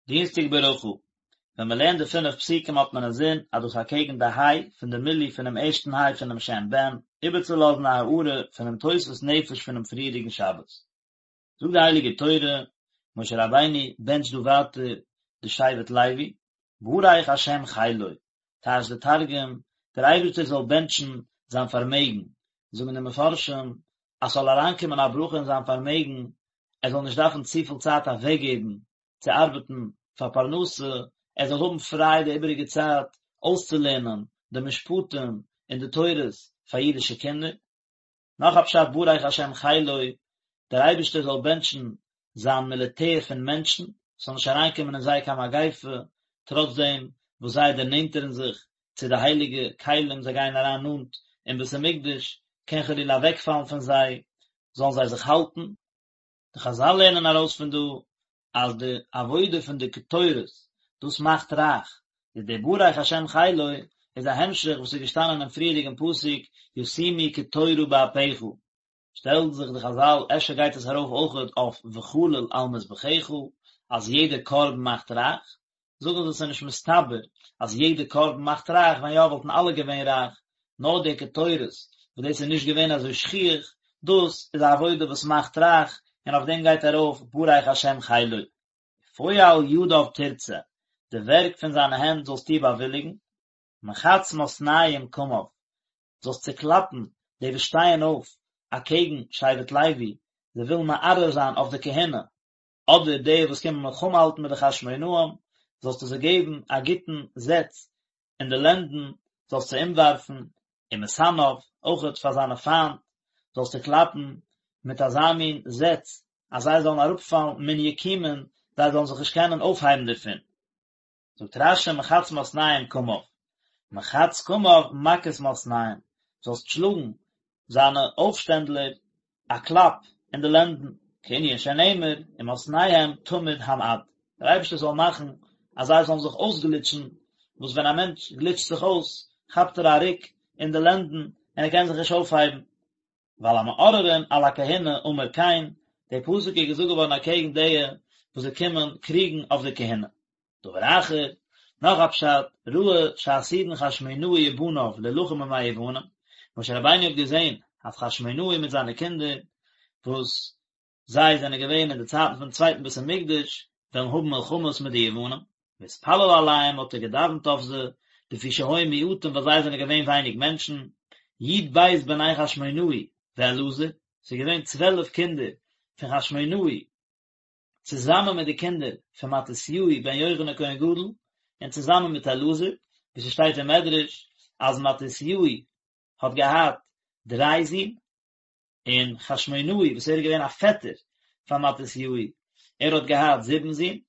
דינסטאג ברכה, ווען מען לערנט די פינף פסוקים האט מען אינזין אז דאס אקעגן די היי פון די מילוי פונעם ערשטן היי פונעם שם בן, איבערצולאזן א הארה פונעם תוספות נפש פונעם פריערדיגן שבת. זאגט די הייליגע תורה, משה רבינו בענטשט דא ווייטער די שבט לוי, ברך השם חילו, טייטשט די תרגום, דער אייבערשטער זאל בענטשן זיין פארמעגן, זאגן די מפרשים אז ס'זאל אריינקומען א ברכה אין זיין פארמעגן, ער זאל נישט דארפן צופיל צייט אוועקגעבן צו ארבעטן פאר פרנסה, ער זאל האבן פריי די איבעריגע צייט אויסצולערנען די משפטים און די תורות פאר אידישע קינדער. נאך א פשט ברך השם חילו, דער אייבערשטער זאל בענטשן זיין מיליטער פון מענטשן, ס'זאל נישט אריינקומען אין זיי קיין מגיפה, טראצדעם וואס זיי דערנענטערן זיך צו די הייליגע כלים, זיי גייען אריין נאנט אין בית המקדש, קען חלילה אוועקפאלן פון זיי, זאלן זיי זיך האלטן. די חזל לערנען ארויס פון דא אז די עבודה פון די קטורת דאס מאכט רייך, איז דער ברך השם חילו איז א המשך וואס איז געשטאנען אין פריערדיגן פסוק ישימו קטורה באפך, שטעלן זיך די חזל אפשר גייט עס ארויף אויכעט אויף וכליל על מזבחך אז יעדע קרבן מאכט רייך, זאגן זיי ס'איז נישט מסתבר אז יעדע קרבן מאכט רייך, ווען יא וואלטן אלע געווען רייך, נאר די קטורת וואס דאס איז נישט געווען אזוי שכיח, דאס איז א עבודה וואס מאכט רייך, און אויף דעם גייט ארויף ברך השם חילו. ופועל ידיו תרצה, די ווערק פון זיינע הענט זאלסטו באוויליגן, מחץ מתנים קמיו, זאלסט צעקלאפן די וואס שטייען אויף אקעגן שבט לוי, זיי ווילן מערער זיין אויף די כהונה, אדער די וואס קומען מלחמה האלטן מיט די חשמונאים, זאלסטו זיי געבן א גוטן זעץ אין די לענדן, זאלסט זיי אומווארפן, ומשנאיו, אויכעט פאר זיינע פיינט, זאלסטו קלאפן מיט אזא מין זעץ, אז זיי זאלן אראפפאלן מן יקומון, זיי זאלן זיך נישט קענען אויפהייבן דערפון. זאגט רש"י מחץ מתנים קמיו, מחץ קמיו מכת מתנים, זאלסט שלאגן זיינע אויפשטענדלער א קלאפ אין די לענדן, כענין שנאמר ומתניהם תמיד המעד, דער אייבערשטער זאל מאכן אז זיי זאלן זיך אויסגליטשן, וואס ווען א מענטש גליטשט זיך אויס כאפט ער א רוק אין די לענדן און ער קען זיך נישט אויפהייבן. ועל המעוררים על הכהונה אמר כן, דער פסוק איז געזאגט געווארן אקעגן די וואס זיי קומען קריגן אויף די כהונה. דבר אחר, נאך א פשט, ראה שעתידין חשמונאי ובניו להלחם עם היוונים, משה רבינו האט געזען אז חשמונאי מיט זיינע קינדער, וואס זיי זענען געווען אין די צייטן פון צווייטן בית המקדש, וועלן האבן מלחמות מיט די יוונים, והתפלל עליהם האט ער געדאווענט אויף זיי, לפי שהיו מועטים ווייל זיי זענען געווען ווייניג מענטשן, י"ב בני חשמונאי ואלעזר, ס'איז געווען צוועלף קינדער פון חשמונאי, צוזאמען מיט די קינדער פון מתתיהו בן יוחנן כהן גדול, און צוזאמען מיט אלעזר, ווי ס'שטייט אין מדרש אז מתתיהו האט געהאט דריי זין, און חשמונאי וואס ער איז געווען א פעטער פאר מתתיהו, ער האט געהאט זיבן זין,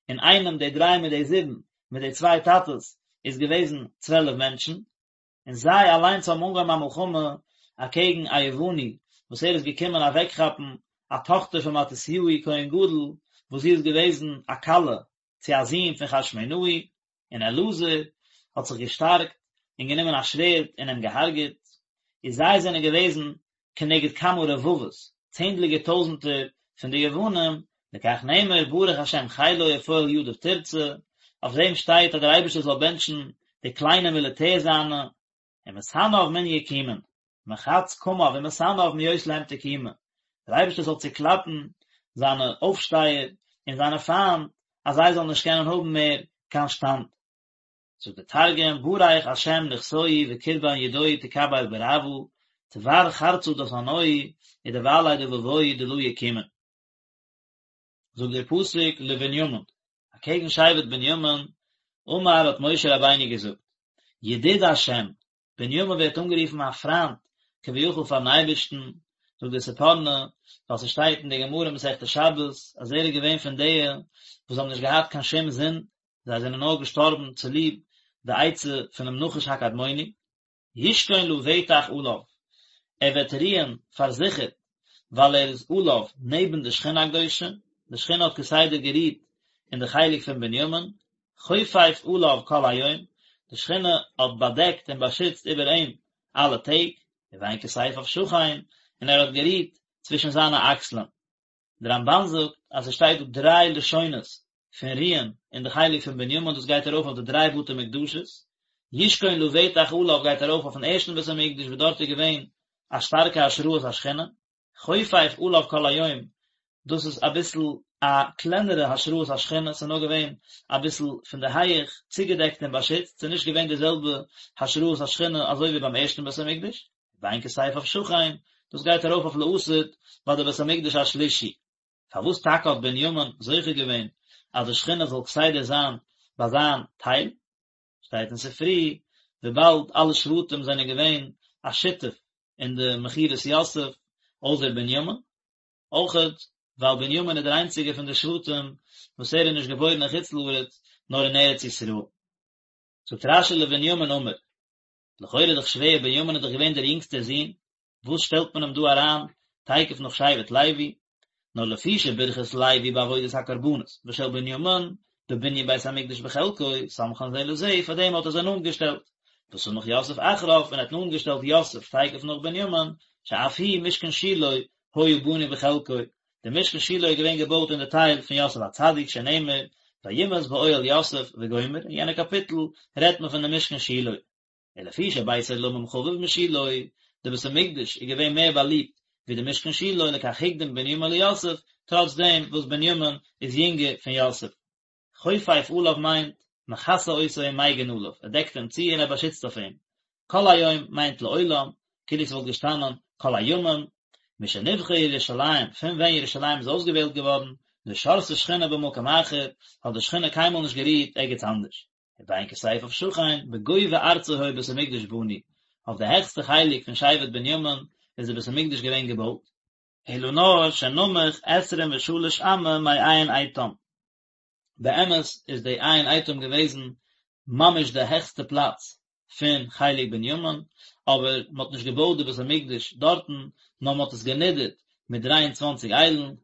אינאיינעם די דריי מיט די זיבן, מיט די צוויי טאטעס, איז געוועזן צוועלף מענטשן, און זיי אליינס האבן אנגעהויבן א מלחמה אקעגן א יווני וואס ער איז געקומען אוועקכאפן א טאכטער פון מתתיהו כהן גדול וואס זי איז געוועזן א כלה צו א זון פון חשמונאי, און אלעזר האט זיך געשטארקט און גענומען א שווערד און אים געהארגעט, און זיי זענען געוועזן כנגד כמה רבבות, צענדליגער טויזנטער פון די יוונים, לכך נאמר ברך השם חילו ופועל ידיו תרצה, אויף דעם שטייט אז דער אייבערשטער זאל בענטשן די קליינע מיליטער זיינע, ומשנאיו מן יקומון, מחץ קמיו ומשנאיו מהיות להם תקומה, דער אייבערשטער זאל צוקלאפן זיינע אויפשטייער און זיינע פיינט אז זיי זאלן נישט קענען האבן מער קיין שטאנד. זאגט דער תרגום, בריך השם נכסוהי וקרבן ידוהי תקבל ברעוא, תבר חרצא דסנאוהי ודבעלי דבבוהי דלא יקומון. זאגט דער פסוק לבנימין, אקעגן שבט בנימין, אמר האט משה רבינו געזאגט, ידיד השם, בנימין ווערט אנגערופן א פריינט כביכול פארן אייבערשטן, זאגט דער ספורנו, ווייל ס'שטייט אין די גמרא מסכת שבת אז ער איז געווען פון די וואס האבן נישט געהאט קיין שום זינד, זיי זענען נאר געשטארבן צוליב די עצה פונעם נחש הקדמוני. ישכון לבטח עליו, ער וועט רוען פארזיכערט ווייל ער איז עליו נעבן די שכינה הקדושה, די שכינה האט כסדר גערוהט אין די חלק פון בנימין, חופף עליו כל היום, די שכינה האט באדעקט און באשיצט איבער אים אלע טעג, ובין כתפיו שכן, און ער האט גערוהט צווישן זיינע אקסלען. דער רמב"ן זאגט אז עס שטייט דא דריי לשונות. פון רוען אין די חלק פון בנימין, דאס גייט ארויף אויף די דריי בתי מקדשות, ישכון לבטח עליו גייט ארויף אויפן ערשטן בית המקדש וואס דארט איז געווען א שטארקע השראת השכינה, חופף עליו כל היום, דאס איז אביסל א קלענערע השראת השכינה, ס'איז נאר געווען אביסל פון די הייעך צוגעדעקט און באשיצט, ס'איז נישט געווען די זעלבע השראת השכינה אזוי ווי ביים ערשטן בית המקדש. ובין כתפיו שכן, דאס גייט ארויף אויף לעתיד ביי די בית המקדש השלישי. פארוואס טאקע האט בנימין זוכה געווען אז די שכינה זאל כסדר זיין ביי זיין טייל? שטייט אין ספרי, וויבאלד אלע שבטים זענען געווען א שותף אין די מכירת יוסף, אויסער בנימין, אויכעט ווייל בנימין איז דער איינציגער פון די שבטים וואס ער איז נישט געבוירן אין חוץ לארץ נאר אין ארץ ישראל. זאגט רשי לבנימין אמר, לכאורה איז דאך שווער, בנימין איז דאך געווען דער יונגסטער זון, וואס שטעלט מען אים דא אריין תיכף נאך שבט לוי? נאר לפי שברכת לוי בעבודת הקרבנות ושל בנימין בבנין בית המקדש בחלקו, סמכן זה לזה, פאר דעם האט ער זיי נאנט געשטעלט. וסמך יוסף אחריו, און ער האט נאנט געשטעלט יוסף תיכף נאך בנימין, שאף הוא משכן שילה היה בנוי בחלקו, דער משכן שילה איז געווען געבויט אין די טייל פון יוסף הצדיק שנאמר וימאס באוהל יוסף וגומר, אין יענע קאפיטל רעדט מען פון די משכן שילה. ולפי שבית עולמים חביב משילה, די בית המקדש איז געווען מער באליבט ווי די משכן שילה, לכך הקדים בנימין ליוסף, טראץ דעם וואס בנימין איז יונגער פון יוסף. חופף עליו מיינט, מכסה אותו ומגין עליו, ער דעקט אים צו און ער באשיצט אויף אים. כל היום מיינט לעולם, כאילו ס'וואלט געשטאנען כל הימים. משנבחרה ירושלים, פון ווען ירושלים איז אויסגעוועלט געווארן, לא שרתה שכינה במקום אחר, האט די שכינה קיינמאל נישט גערוהט ערגעץ אנדערש. ובין כתפיו שכן, בגובה ארצו היה בית המקדש בנוי, אויף די העכסטע חלק פון שבט בנימין איז די בית המקדש געווען געבויט. אלא נאר שנמוך עשרים ושלש אמה מעין עיטם. באמת איז די עין עיטם געוועזן ממש די העכסטע פלאץ פון חלק בנימין, אבער מען האט נישט געבויט די בית המקדש דארטן, נאר מען האט עס גענידערט מיט דריי און צוואנציג איילן,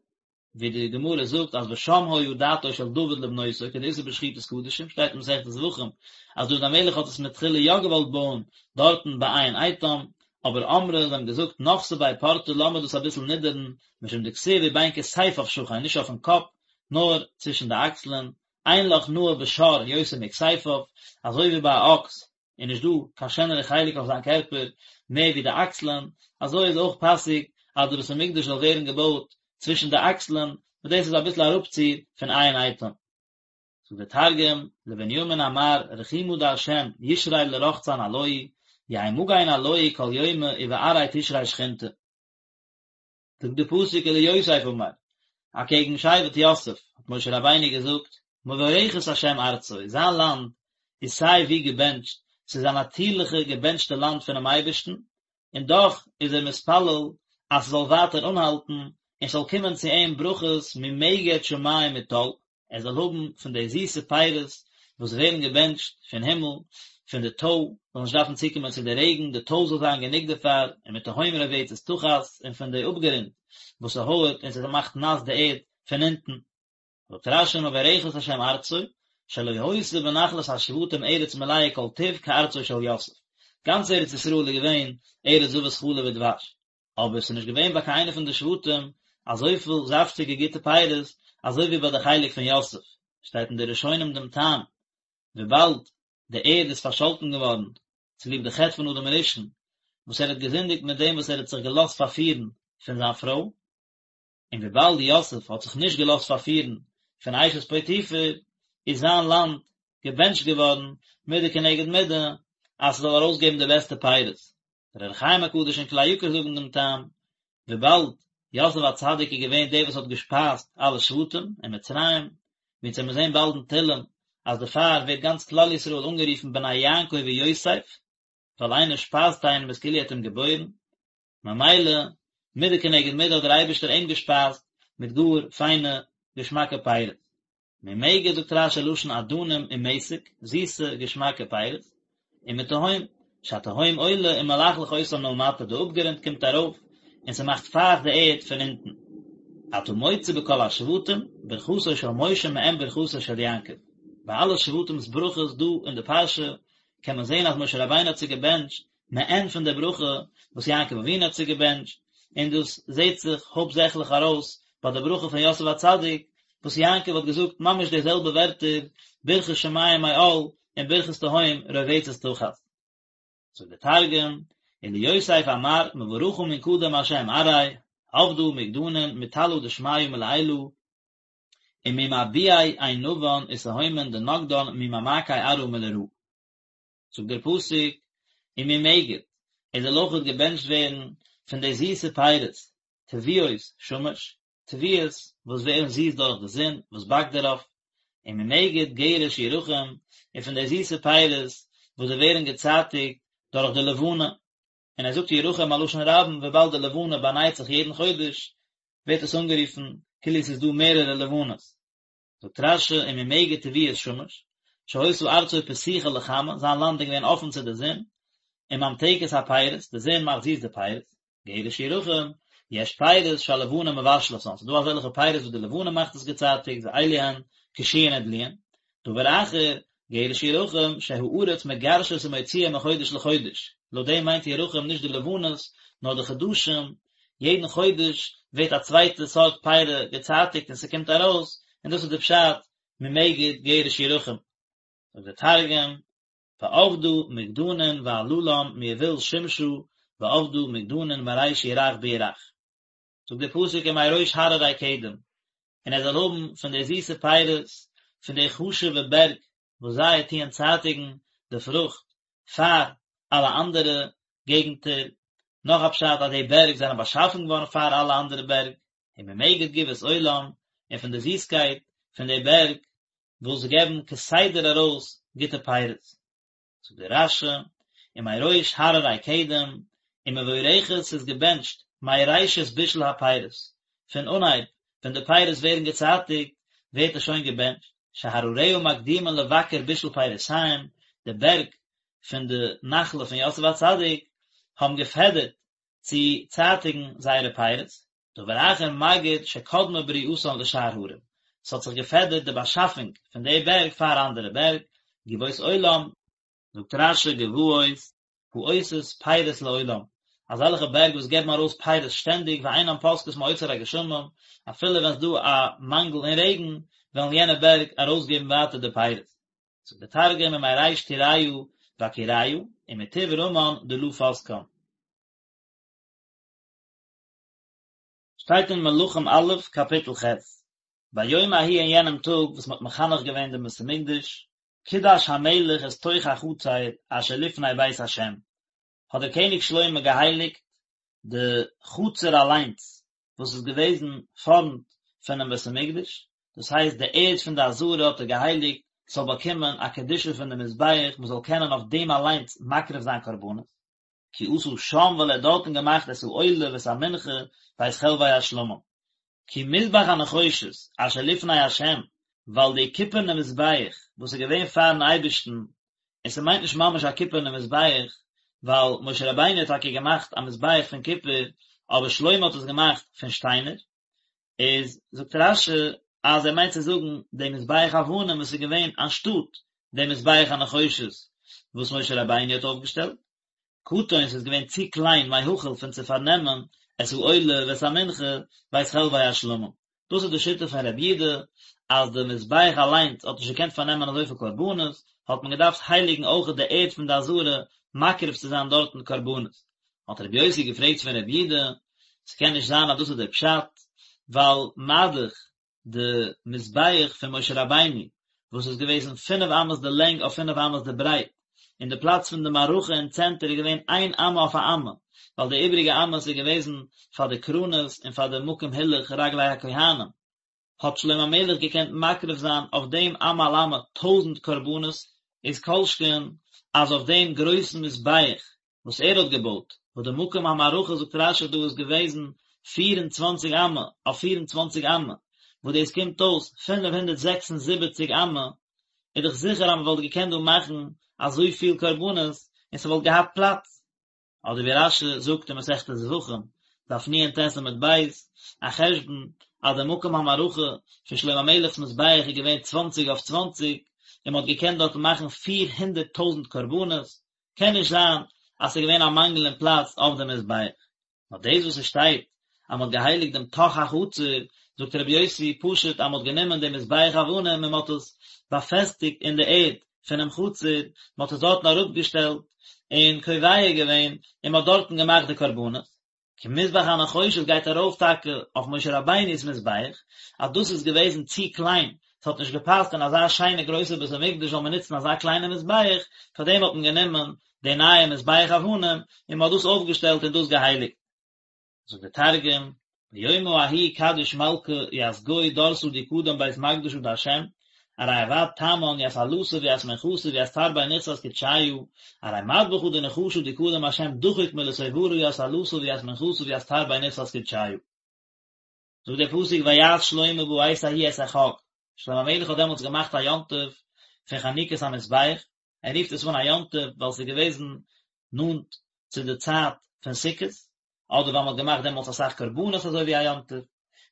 ווי די גמרא זאגט אז ושם היה דעתו של דוד לבנותו כדאיתא בשחיטת קדשים, שטייט אין מסכת זבחים אז דוד המלך האט עס מתחילה יא געוואלט בויען דארטן ביי עין עיטם, אבער אמרי זיי האבן געזאגט נחתי ביה פורתא לאמיר דאס אביסל נידערן, משום דכתיב ובין כתפיו שכן, נישט אויפן קאפ, נאר צווישן די אקסלען, אין לך נאה בשור יותר מכתפיו, אזוי ווי ביי א אקס איז נישט דא קיין שענערע חלק אויף זיין קערפער מער ווי די אקסלען, אזוי איז אויך פאסיג אז די בית המקדש זאל ווערן געבויט צווישן די אקסלען, וואס דאס איז אביסל אראפציר פון עין עיטם. זאגט דער תרגום, לבנימין אמר רחימא דהשם ישרי לרחצן עלוהי, יהי מגין עלוהי כל יומא ובארעיה תשרי שכינתא. זאגט די פסוק וליוסף אמר, אקעגן שבט יוסף האט משה רבינו געזאגט, מבורכת השם ארצו, זיין לאנד איז סיי ווי געבענטשט, ס'איז א נאטירליכע געבענטשטע לאנד פונעם אייבערשטן, און דאך איז ער מתפלל אז ס'זאל ווייטער אנהאלטן און ס'זאל קומען צו אים ברכות ממגד שמים מטל, ער זאל האבן פון די זיסע פירות וואס ווערן געבענטשט פון הימל, פון די טוי, זאל נישט דארפן צוקומען צו די רעגן, די טוי זאל זיין גענוג דערפאר, ומתהום רובצת תחת, און פון די אפגרונד וואס ס'הויערט און ס'מאכט נאס די ערד פון אונטן. זאגט רש"י מבורכת השם ארצו, שלא היתה בנחלת השבטים ארץ מלאה כל טוב כארצו של יוסף, גאנץ ארץ ישראל איז געווען ארץ זבת חלב ודבש, אבער ס'איז נישט געווען ביי קיין איינע פון די שבטים אזויפיל זאפטיגע גוטע פירות אזוי ווי ביי די חלק פון יוסף, שטייט אין די ראשונים דעם טעם, וויבאלד די ערד איז פארשאלטן געווארן צוליב די חטא פון אדם הראשון וואס ער האט געזינדיגט מיט דעם וואס ער האט זיך געלאזט פארפירן פון זיין פרוי, און וויבאלד יוסף האט זיך נישט געלאזט פארפירן פון אשת פוטיפר, איז זיין לאנד געבענטשט געווארן מידה כנגד מידה, אז ס'זאל ארויסגעבן די בעסטע פירות. דער אור החיים הקדוש און כלי יקר זאגן דעם טעם, וויבאלד יוסף הצדיק איז געווען דער וואס האט געשפייזט אלע שבטים אין מצרים, ווי אונז וועלן זען באלד אין תהלים אז דערפאר ווערט גאנץ כלל ישראל אנגערופן בני יעקב ויוסף, ווייל איינער שפייזט איינעם איז כאילו ער האט אים געבוירן, ממילא, מידה כנגד מידה האט דער אייבערשטער אים געשפייזט מיט גאר פיינע געשמאקע פירות. ממגד זאגט רש"י לשון אדנים ומתק, זיסע געשמאקע פירות, ומתהום, שהתהום עולה ומלחלח אותה מלמטה, די אפגרונט קומט ארויף און ס'מאכט פייכט די ערד פון אונטן. אתה מוצא בכל השבטים, ברכתו של משה מעין ברכתו של יעקב. ביי אלע שבטים'ס ברכות דא אין די פרשה קען מען זען אז משה רבינו האט זיי געבענטשט מעין פון די ברכה וואס יעקב אבינו האט זיי געבענטשט, און דאס זעט זיך הויפטזעכליך ארויס ביי די ברכה פון יוסף הצדיק. וואס יעקב האט געזאגט ממש די זעלבע ווערטער, ברכת שמים מעל און ברכת תהום רובצת תחת. זאגט דער תרגום, וליוסף אמר מברכא מן קדם השם ארעי, עבדא מגדנין מטלא דשמיא מלעילא, וממבועי ענבן ותהומין דנגדן ממעמקי ארעא מלרעא. זאגט דער פסוק, וממגד, ער זאל אויכעט געבענטשט ווערן פון די זיסע פירות, תבואות שמש, תבואות וואס ווערן זיס דורך די זון וואס באקט דערויף, וממגד גרש ירחים, און פון די זיסע פירות וואס זיי ווערן געצייטיגט דורך די לבנה, און ער זאגט ירחים א לשון רבים וויבאלד די לבנה באנייט זיך יעדן חודש, ווערט עס אנגערופן כאילו עס איז דא מערערע לבנות. זאגט רש"י וממגד תבואות שמש, שהיתה ארצו פתוחה לחמה, זיין לאנד איז געווען אפן צו די זון, וממתקת הפירות, די זון מאכט זיס די פירות, גרש ירחים, יש פירות שהלבנה מבשלתן, ס'איז דא אזעלכע פירות וואס די לבנה מאכט עס געצייטיגט, ואלו הן קישואין ודלועין, דבר אחר, גרש ירחים, שהארץ מגרשת ומוציאה מחודש לחודש, לויט דעם מיינט ירחים נישט די לבנות, נאר די חדשים, יעדן חודש ווערט א צווייטע סארט פירא געצייטיגט און ס'קומט ארויס, און דאס איז די פשט ממגד גרש ירחים. זאגט דער תרגום, ועבדא מגדנין ועללן מיבול שמשא ועבדא מגדנין מריש ירח בירח. זאגט דער פסוק ומראש הררי קדם, און ער זאל האבן פון די זיסע פירות פון די חשוב'ע בערג וואס זיי טוען צייטיגן די פרוכט פאר אלע אנדערע געגנטער, נאך א פשט אז די בערג זענען באשאפן געווארן פאר אלע אנדערע בערג, וממגד גבעות עולם, און פון די זיסקייט פון די בערג וואס געבן כסדר ארויס גוטע פירות. זאגט דער רש"י, ומראש הררי קדם, ומבורכת ס'איז געבענטשט מראשית בישול הפירות, פון אנהייב ווען די פירות ווערן געצייטיגט ווערט עס שוין געבענטשט, שהרריה מקדימין לבכר בישול פירותיהם, די בערג פון די נחלה פון יוסף הצדיק האבן געפעדערט צו צייטיגן זייערע פירות, דבר אחר מגיד שקדמה בריאתן לשאר הרים, ס'האט זיך געפעדערט די באשאפונג פון די בערג פאר אנדערע בערג, גבעות עולם, זאגט רש"י גבעות העושות פירות לעולם, אזעלכע בערג וואס געבן ארויס פירות שטענדיג ואינן פוסקות מאוצר הגשמים, אפילו ווען ס'דא א מאנגל אין רעגן, וועלן יענע בערג ארויסגעבן ווייטער די פירות. זאגט דער תרגום ומריש טוריא בקיריא, ומטוב רמן דלא פסקן. שטייט אין מלכים א', קאפיטל ח', ביום ההוא אין יענעם טאג וואס מען האט מחנך געווען דעם בית המקדש, קידש המלך את תוך החצר אשר לפני בית השם, האט דער קעניג שלמה געהייליגט די חצר אליינס וואס איז געוועזן פארנט פונעם בית המקדש, דאס הייסט די ערד פון די עזרה האט ער געהייליגט ס'זאל באקומען א קדושה פון די מזבח, מען זאל קענען אויף דעם אליינס מקריב זיין קרבנות. כי עשה שם ווייל ער האט דארטן געמאכט את העולה ואת המנחה ואת חלבי השלמים. כי מזבח הנחושת אשר לפני השם, ווייל די קופערנע מזבח וואס איז געווען פארן אייבערשטן, און ס'מיינט נישט ממש א קופערנע מזבח, ווייל משה רבינו האט טאקע געמאכט א מזבח פון קופער, אבער שלמה האט עס געמאכט פון שטיינער, איז זאגט רש"י אז ער מיינט צו זאגן די מזבח אבנים וואס איז געווען אנשטאט די מזבח הנחושת וואס משה רבינו האט אויפגעשטעלט, קטן ס'איז געווען צו קליין מהכיל פון צו פארנעמען את העולה ואת המנחה ואת חלבי השלמים. דאס איז די שיטה פון רבי יודא אז די מזבח אליינס האט נישט געקענט פארנעמען אזויפיל קרבנות, האט מען געדארפט הייליגן אויכעט די ערד פון די עזרה מקריב צו זיין דארטן קרבנות. האט רבי יוסי געפרעגט פון רבי יודא, ס'קען נישט זיין אז דאס איז דער פשט, ווייל מה-דאך די מזבח פון משה רבינו וואס איז געוועזן פינף אמות די לענג אויף פינף אמות די ברייט, און די פלאץ פון די מערכה אין צענטער איז געווען איין אמה אויף א אמה, ווייל די איבריגע אמות איז געוועזן פאר די קרנות און פאר די מקום הילוך רגלי הכהנים, האט שלמה המלך געקענט מקריב זיין אויף דעם אמה על אמה טויזענט קרבנות, איז כל שכן אז אויף דעם גרויסן מזבח וואס ער האט געבויט, וואס די מקום המערכה זאגט רש"י דא איז געוועזן 24 אמה אויף 24 אמה, וואס דאס קומט אויס 576 אמה, איז דאך זיכער אז מען וואלט געקענט דא מאכן אזויפיל קרבנות און ס'וואלט געהאט פלאץ. אדער ווי רש"י זאגט אין מסכת זבחים, דף נ"ט עמוד ב', א חשבון אז די מקום המערכה פון שלמה המלך'ס מזבח איז געווען צוואנציג אויף צוואנציג, און מען האט געקענט דארטן מאכן פיר הונדערט טויזנט קרבנות, קען נישט זיין אז ס'איז געווען א מאנגל אין פלאץ אויף די מזבח. נאר דאס וואס עס שטייט אז מען האט געהייליגט דעם תוך החצר, זאגט רבי יוסי פשוט אז מען האט גענומען דעם מזבח אבנים און מען האט עס באפעסטיגט אין די ערד פונעם חצר, מען האט עס דארטן אראפגעשטעלט און קובע געווען און מען האט דארטן געמאכט די קרבנות. כי מזבח הנחושת גייט ארויף טאקע אויף משה רבינו'ס מזבח, אז דאס איז געוועזן צו קליין, ס'האט נישט געפאסט אין אזא שיינע גרויסע בית המקדש זאל מען נוצן אזא קליינע מזבח, פארדעם האט מען גענומען די נייע מזבח אבנים און מען האט דאס אויפגעשטעלט און דאס געהייליגט. זאגט דער תרגום, ביומא ההוא קדיש מלכא ית גו דורסא די קדם בית מקדשא דהשם, ארי עבד תמן ית עלתא וית מנחתא וית תרבי נכסת קודשיא, ארי מדבחא דנחשא די קדם השם דחיק מלתוברא ית עלתא וית מנחתא וית תרבי נכסת קודשיא. זאגט דער פסוק ויעש שלמה בעת ההיא את החג, שלמה המלך האט דעמאלטס געמאכט א יום טוב פון חנוכת המזבח, ער רופט עס אן א יום טוב ווייל עס איז געוועזן נאנט צו די צייט פון סוכות, אדער ווייל מען האט געמאכט דעמאלטס אסאך קרבנות אזוי ווי א יום טוב.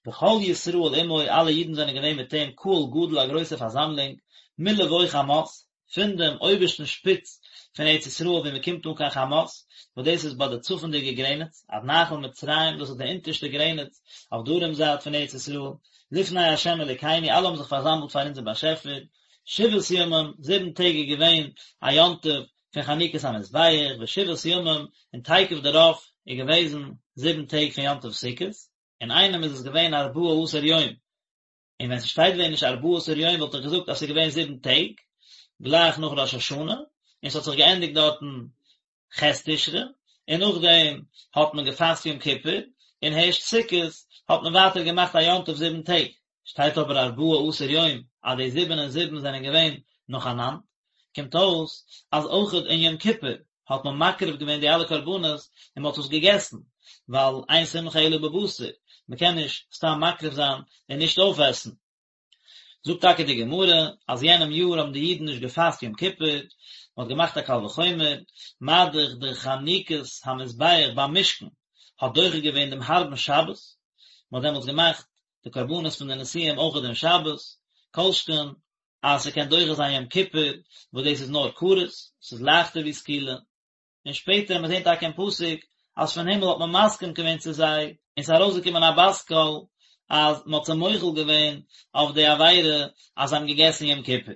וכל ישראל עמו, אלע אידן זענען געווען מיט אים, קהל גדול א גרויסע פארזאמלונג, מלבוא חמת, פון דעם אויבערשטן שפיץ פון ארץ ישראל וואו מען קומט אן קיין חמת, וואס דאס איז ביי די צפונדיגע גרעניץ, עד נחל מצרים, דאס איז די אונטערשטע גרעניץ אויף דרום זייט פון ארץ ישראל, לפני ה' אלוקינו, אלע האבן זיך פארזאמלט פאר אונזער באשעפער, שבעת ימים, זיבן טעג איז געווען א יום טוב פון חנוכת המזבח, ושבעת ימים, און תיכף דערויף איז געוועזן זיבן טעג פון יום טוב סוכות, אינאיינעם איז עס געווען ארבעה עשר יום, און ווען ס'שטייט ווען נישט ארבעה עשר יום וואלט איך געזאגט אז ס'איז געווען זיבן טעג, גלייך נאך ראש השנה, און ס'האט זיך געענדיגט דארטן ח' תשרי, און נאכדעם האט מען געפאסט יום כיפור, און הערשט סוכות האט מען ווייטער געמאכט א יום טוב זיבן טעג. שטייט אבער ארבעה עשר יום אז די זיבן און זיבן זענען געווען נאכאנאנד, קומט אויס אז אויכעט אין יום כיפור האט מען מקריב געווען די אלע קרבנות און מען האט עס געגעסן, ווייל אין שמחה אלא בבשר, מען קען נישט סתם מקריב זיין און נישט אויפעסן. זאגט טאקע די גמרא אז יענעם יאר האבן די אידן נישט געפאסט יום כיפור, מען האט געמאכט א קל וחומר, מה דאך די חנוכת המזבח ביים משכן האט דוחה געווען דעם הארבן שבת, מען האט דעמאלטס געמאכט די קרבנות פון די נשיאים אויך דעם שבת, כל שכן אז ס'קען דוחה זיין יום כיפור, וואס דאס איז נאר כרת, ס'איז לייכטער ווי סקילה. און שפעטער וועט מען זען טאקע אין פסוק אז פון הימל האט מען מסכים געווען צו זיי, און ס'איז ארויסגעקומען א בת קול אז מ'האט זיי מוחל געווען אויף די עבירה אז זיי האבן געגעסן יום כיפור.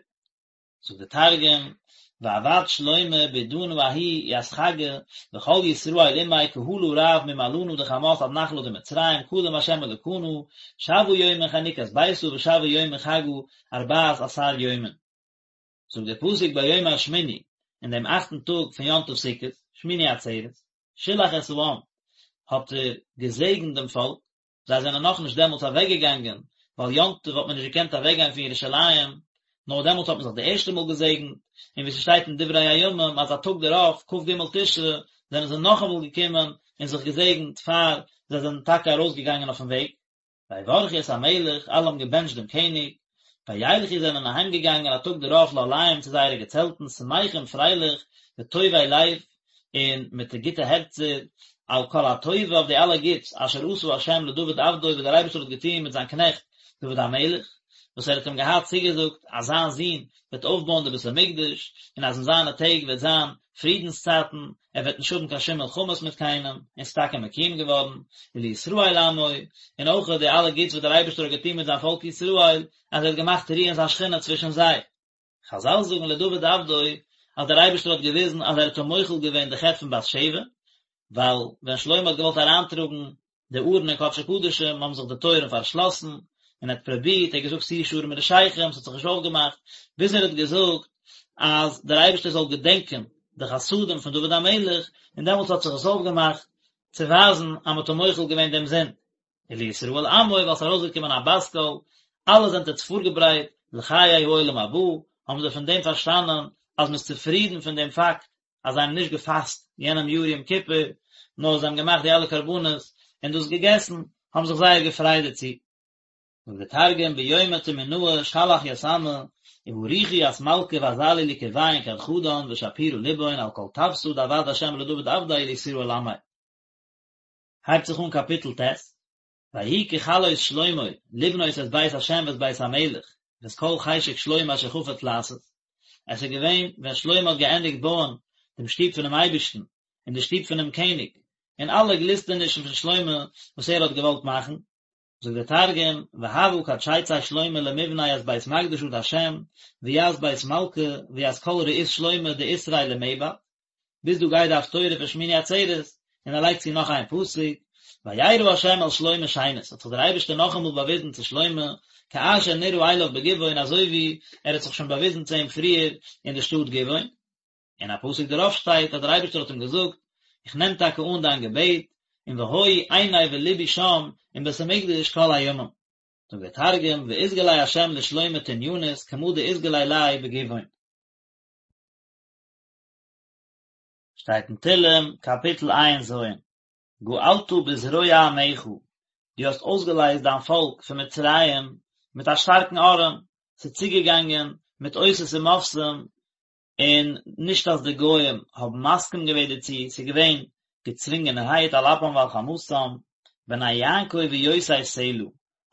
זאגט די תרגום, ועבד שלמה בעידנא ההיא ית חגא וכל ישראל עמיה קהלא רב ממעלנא דחמת עד נחלא דמצרים קדם ה' אלקנא שבעא יומין חנוכת ביתא ושבעא יומין חגא ארבעת עשר יומין. זאגט דער פסוק ביום השמיני, אין דעם אכטן טאג פון יום טוב סוכות, שמיני עצרת, שילח את העם, האט ער געזעגנט דעם פאלק, זיי זענען נאכנישט דעמאלטס אוועקגעגאנגען, ווייל יום טוב האט מען נישט געקענט אוועקגיין פון ירושלים, נאר דעמאלטס האט מען זיך די ערשטע מאל געזעגנט, און ווי ס'שטייט אין דברי הימים אז א טאג דערויף, כ"ג תשרי, זענען זיי נאכאמאל געקומען און זיך געזעגנט פאר זיי זענען טאקע ארויסגעגאנגען אויפן וועג. ויברכו את המלך, אלע האבן געבענטשט דעם קעניג, וילכו זענען אהיימגעגאנגען א טאג דערויף לאהליהם צו זייערע געצעלטן, שמחים פרייליך, וטובי לב, און מיט גוטע הערצער, על כל הטובה אויף די אלע גוטס, אשר עשה ה' לדוד עבדו וואס דער אייבערשטער האט געטון מיט זיין קנעכט דוד המלך, וואס ער האט אים געהאט צוגעזאגט אז זיין זון וועט אויפבויען די בית המקדש, און אז אין זיינע טעג וועט זיין פרידנס צייטן, ער וועט נישט האבן קיין שום מלחמות מיט קיינעם, און ס'איז טאקע מקוים געווארן, ולישראל עמו, און אויך די אלע גוטס וואס דער אייבערשטער האט געטון מיט זיין פאלק ישראל, אז ער האט געמאכט רוען זיין שכינה צווישן זיי. חזל זאגן לדוד עבדו, אז דער אייבערשטער האט געוויזן אז ער האט אים מוחל געווען די חטא פון בת שבע, ווייל ווען שלמה האט געוואלט אריינטראגן די ארון אין קדשי קדשים האבן זיך די טויערן פארשלאסן, און ער האט פרובירט, ער האט געזאגט שאו שערים מראשיכם, ס'האט זיך נישט אויפגעמאכט, ביז ער האט געזאגט אז דער אייבערשטער זאל געדענקען די חסדים פון דוד המלך, און דעמאלטס האט זיך עס אויפגעמאכט, צו ווייזן אז מ'האט אים מוחל געווען דעם זינד. ולישראל עמו, ווייל ס'איז ארויסגעקומען א בת קול, אלע זענט עטס פארגעברייט לחיי העולם הבא, האבן זיי פון דעם פארשטאנען אז מ'איז צופרידן פון דעם פאקט אז זיי האבן נישט געפאסט יענעם יאר יום כיפור, נאר זיי האבן געמאכט די אלע קרבנות און דאס געגעסן, האבן זיך זייער געפרייט דערצו. זאגט דער תרגום ביומא תמינאה שלח ית עמא ובריכו ית מלכא ואזלו לקרויהון כד חדן ושפירא לבהון על כל טבתא דעבד ה' לדוד עבדיה ולישראל עמיה. הייבט זיך אן קאפיטל ט', ויהי ככלות שלמה לבנות את בית ה' ואת בית המלך ואת כל חשק שלמה אשר חפץ לעשות, עס איז געווען ווען שלמה האט געענדיגט בויען דעם שטוב פונעם אייבערשטן און די שטוב פונעם קעניג, און אלע גליסטענישן פון שלמה וואס ער האט געוואלט מאכן. זאגט דער תרגום, והוה כד שיצי שלמה למבני ית בית מקדשא דהשם, וית בית מלכא, וית כל רעות שלמה דאתרעי למעבד, ביז דא גייט די הפטורה פון שמיני עצרת, און ער לייגט צו נאך איין פסוק, וירא ה' אל שלמה שנית, האט זיך דער אייבערשטער נאכאמאל באוויזן צו שלמה, כאשר נראה אליו בגבעון אזוי ווי ער האט זיך שוין באוויזן צו אים פריער אין די שטאט גבעון. און א פסוק דערויף שטייט אז דער אייבערשטער האט אים געזאגט, איך נעם טאקע אן דיין געבעט, און והיו עיני ולבי שם אין בית המקדש כל הימים. זאגט דער תרגום, ואתגלי ה' לשלמה תניינית כמה דאתגלי ליה בגבעון. שטייט אין תהלים קאפיטל ע"ז, גאלת בזרוע עמך, דו האסט אויסגעלייזט דיין פאלק פון מצרים מיט א שטארקן ארעם, ס'איז צוגעגאנגען מיט אותות ומופתים, און נישט אז די גוים האבן מסכים געווען דערצו, ס'איז געווען געצווינגענערהייט על אפם ועל חמתם, בני יעקב ויוסף סלה,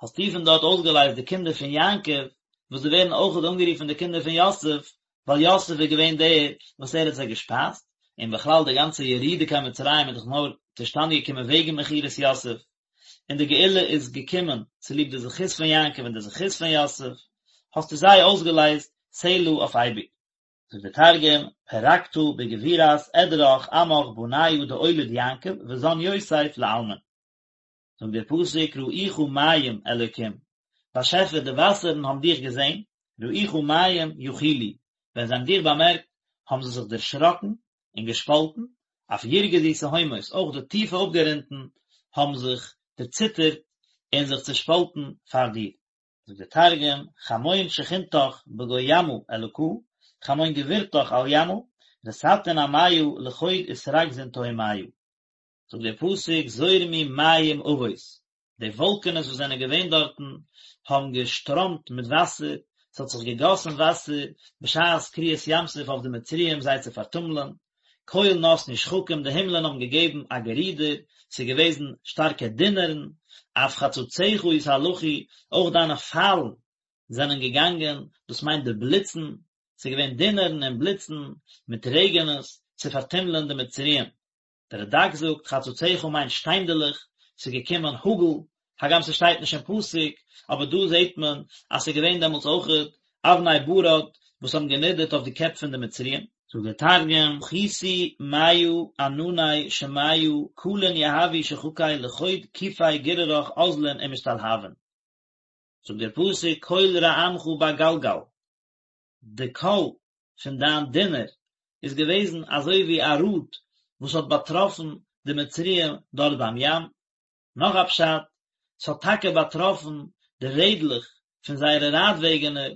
האסטו פון דארט אויסגעלייזט די קינדער פון יעקב, וואס זיי ווערן אויכעט אנגערופן די קינדער פון יוסף, ווייל יוסף איז געווען דער וואס ער האט זיי געשפייזט, און בכלל די גאנצע ירידה קיין מצרים איז דאך נאר צושטאנד געקומען וועגן מכירת יוסף, און די גאולה איז געקומען צוליב די זכות פון יעקב און די זכות פון יוסף, האסטו זיי אויסגעלייזט סלה אויף אייביג. זאגט דער תרגום, פרקתא בגבורת עדרך עמך בניא דאוליד יעקב וזן יוסף לעלמין. זאגט דער פסוק ראוך מים אלוקים, באשעפער די וואסערן האבן דיך געזען, ראוך מים יחילו, ווען זיי האבן דיך באמערקט האבן זיי זיך דערשראקן און געשפאלטן, אף ירגזו תהומות, אויך די טיפע אפגרונטן האבן זיך דערציטערט און זיך צעשפאלטן פאר דיר. זאגט דער תרגום, חמון שכינתך בגו ימא אלקא, חמון גבורתך על ימא, רתתין אמיא לחוד אתרגזון תהומיא. זאגט דער פסוק זורמו מים עבות, די וואלקענעס וואס זענען געווען דארטן האבן געשטראמט מיט וואסער, ס'האט זיך געגאסן וואסער בשעת קריעת ים סוף אויף די מצריים זיי צו פארטומלען, קול נתנו שחקים, די הימלען האבן געגעבן א גערודער, ס'איז געוועזן שטארקע דונערן, אף חצציך יתהלכו, אויך דיינע פיילן זענען געגאנגען, דאס מיינט די בליצן, ס'איז געווען דונערן און בליצן מיט רעגענעס צו פארטומלען די מצריים. דער רד"ק זאגט חצציך מיינט שטיינדעלעך, ס'איז געקומען האגל, הגם ס'שטייט נישט אין פסוק, אבער דא זעט מען אז ס'איז געווען דעמאלטס אויכעט אבני ברד וואס האבן גענידערט אויף די קעפ פון די מצריים. זאגט דער תרגום, חיתו מיא ענני שמיא קלין יהבו שחקי לחוד כיפי גוררך אזלין ומשתלהבין. זאגט דער פסוק קול רעמך בגלגל, די קול פון דיין דונער איז געוועזן אזוי ווי א ראד וואס האט באטראפן די מצריים דארט ביים ים. נאך א פשט, ס'האט טאקע באטראפן די רעדלעך פון זייערע רייטוועגענער,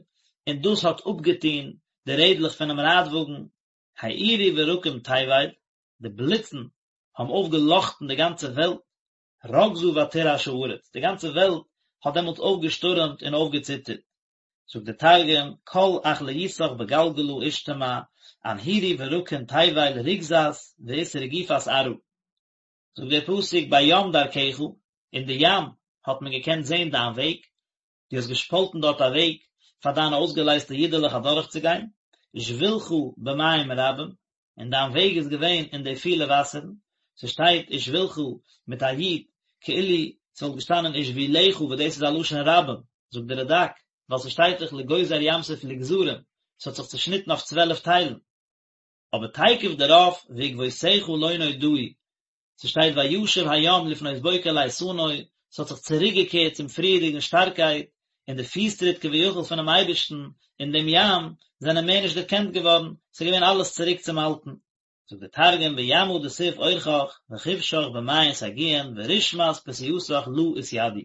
און דאס האט אפגעטון די רעדלעך פונעם רייטוואגן, האירו ברקים תבל, די בליצן האבן אויפגעלאכטן די גאנצע וועלט, רגזה ותרעש הארץ, די גאנצע וועלט האט דעמאלטס אויפגעשטורעמט און אויפגעציטערט. זאגט דער תרגום, קול אכליותך בגלגלא אשתמע, אנהירו ברקין תבל רוגזת ואתרגיפת ארעא. זאגט דער פסוק בים דרכך, אין די ים האט מען געקענט זען דיין וועג, דו האסט געשפאלטן דארט א וועג פאר דיינע אויסגעלייזטע אידעלעך אדורכצוגיין, ושבילך במים רבים, און דיין וועג איז געווען אין די פילע וואסערן, ס'שטייט ושבילך מיט א יוד, כאילו ס'וואלט געשטאנען ושבילך וואס דאס איז א לשון רבים, זאגט דער רד"ק, ווייל ס'שטייט דאך לגוזר ים סוף לגזרים, ס'האט זיך צושניטן אויף צוועלף טיילן. אבער תיכף דערויף ועקבותיך לא נודעו, ס'שטייט וישב הים לפנות בוקר לאיתנו, ס'האט זיך צוריקגעקערט צום פריערדיגן שטארקייט, און די פיסטריט כביכול פונעם אייבערשטן אין דעם ים זענען מער נישט דערקענט געווארן, ס'איז געווען אלעס צוריק צום אלטן. זאגט דער תרגום בימא דתיב אורחך וכבשך במעין סגיאין ורשמת פסיעתך לא אתידעו.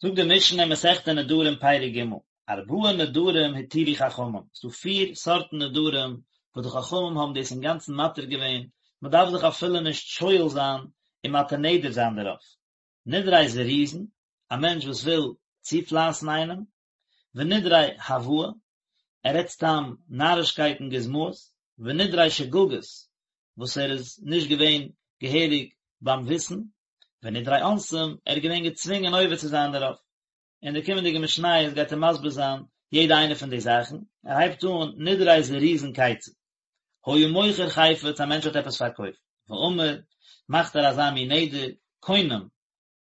זאגט די משנה אין מסכת נדרים פרק ג', ארבעה נדרים התירו חכמים, ס'דא פיר סארטן נדרים וואס די חכמים האבן דאס אינגאנצן מתיר געווען, מען דארף זיך אפילו נישט שואל זיין און מתיר נדר זיין דערויף, נדרי זירוזין, א מענטש וואס וויל צופלייסן איינעם, ונדרי הבאי, ער רעדט סתם נארישקייטן גוזמאות, ונדרי שגגות, וואס ער איז נישט געווען געהעריג ביים וויסן, ונדרי אונסים, ער איז געווען געצווינגען עובר צו זיין דערויף. אין די קומענדיגע משניות גייט ער מסביר זיין יעדע איינע פון די זאכן, ער הייבט אן, נדרי זירוזין כיצד, היה מוכר חפץ, א מענטש האט עפעס פארקויפט, ואמר, מאכט ער אזא מין נדר, קונם.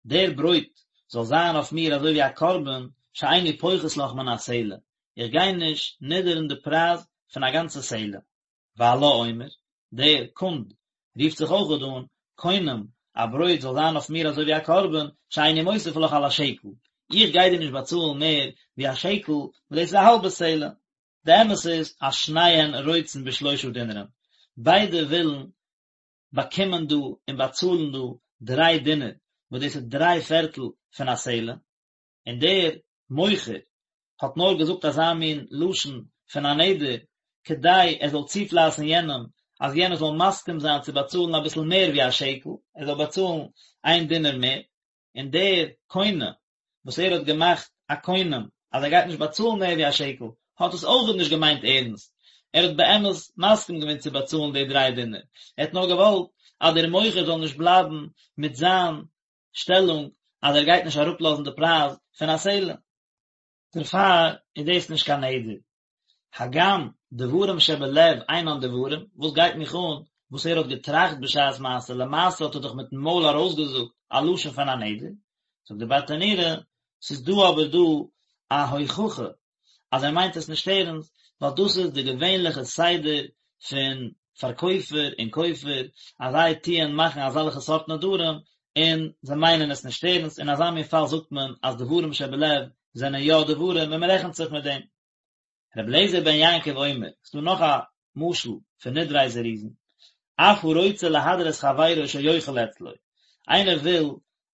דער ברויט זאל זיין אויף מיר אזוי ווי א קרבן, שאיני פוחת לך מן הסלע, איך גיי נישט נידערן די פרייז פון א גאנצע סלע. והלה אומר, דער קונד רופט זיך אויכעט אן, קונם, א ברויט זאל זיין אויף מיר אזוי ווי א קרבן, שאיני מוסיף לך על השקל, איך גיי דיר נישט באצאלן מער ווי א שקל, וואס דאס איז א האלבע סלע. די אמת איז אז שניהן רוצין בשלושה דינרין, ביידע ווילן באקומען דא און באצאלן דא דריי דינר, וואס דאס איז דריי פערטל פון א סלע, און דער מוכר האט נאר געזאגט אזא מין לשון פון א נדר כדי ער זאל צופלייסן יענעם אז יענער זאל מסכים זיין צו באצאלן אביסל מער ווי א שקל, ער זאל באצאלן איין דינר מער, און דער קונה וואס ער האט געמאכט א קונם אז ער גייט נישט באצאלן מער ווי א שקל, האט עס אויכעט נישט געמיינט ערנסט, ער האט באמת מסכים געווען צו באצאלן די דריי דינר, ער האט נאר געוואלט אז דער מוכר זאל נישט בלייבן מיט זיין שטעלונג אז ער גייט נישט אראפלאזן די פרייז פון א סלע. דערפאר איז דאס נישט קיין נדר. הגם דברים שבלב אינן דברים, וואס גייט מיך אן וואס ער האט געטראכט בשעת מעשה, למעשה האט ער דאך מיטן מויל ארויסגעזאגט א לשון פון א נדר, זאגט די ברטנורא, ס'איז דא אבער דא א הוכחה אז ער מיינט עס נישט ערנסט, ווייל דאס איז די געווענליכע סדר פון פארקויפער און קויפער, אז זיי טוען מאכן אזעלכע סארט נדרים, און זיי מיינען עס נישט ערנסט, אין אזא מין פאל זאגט מען אז דברים שבלב זענען יא דברים און מען רעכנט זיך מיט דעם. רבי אליעזר בן יעקב אומר, ס'דא נאך א משל פון נדרי זירוזין, אף הרוצה להדיר את חברו שיאכל אצלו, איינער וויל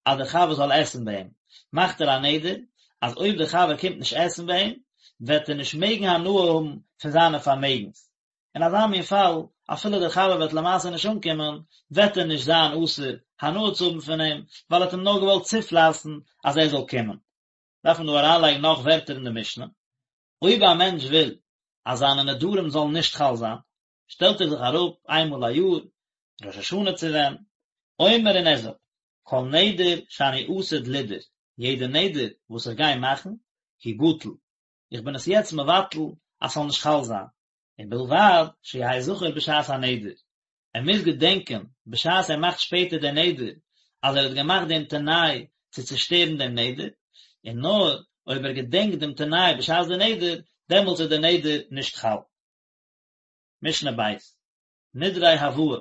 אז דער חבר זאל עסן ביי אים, מאכט ער א נדר אז אויב דער חבר קומט נישט עסן ביי אים, וועט ער נישט מעגן הנאה האבן פון זיינע פארמעגנס. אין אזא מין פאל, אפילו דער חבר וועט למעשה נישט אנקומען, וועט ער נישט זיין אסור הנאה צו האבן פון אים, ווייל ער האט אים נאר געוואלט צופלייסן אז ער זאל קומען. דארף מען דא אריינלייגן נאך ווערטער אין די משנה. אויב א מענטש וויל אז זיינע נדרים זאלן נישט חל זיין, שטעלט ער זיך אראפ איינמאל א יאר, ראש השנה צו ווען, אומר און ער זאגט, כל נדר שאני עתיד לידור, יעדע נדר וואס איך גיי מאכן, הוא בטל, איך בין עס יעצט מבטל אז ס'זאל נישט חל זיין, ובלבד שיהא זכור בשעת הנדר, ער מוז געדענקען בשעת ער מאכט שפעטער דער נדר אז ער האט געמאכט דעם תנאי צו צושטערן דעם נדר, און נאר אויב ער געדענקט דעם תנאי בשעת דער נדר, דעמאלטס איז דער נדר נישט חל. משנה ב', נדרי הבאה,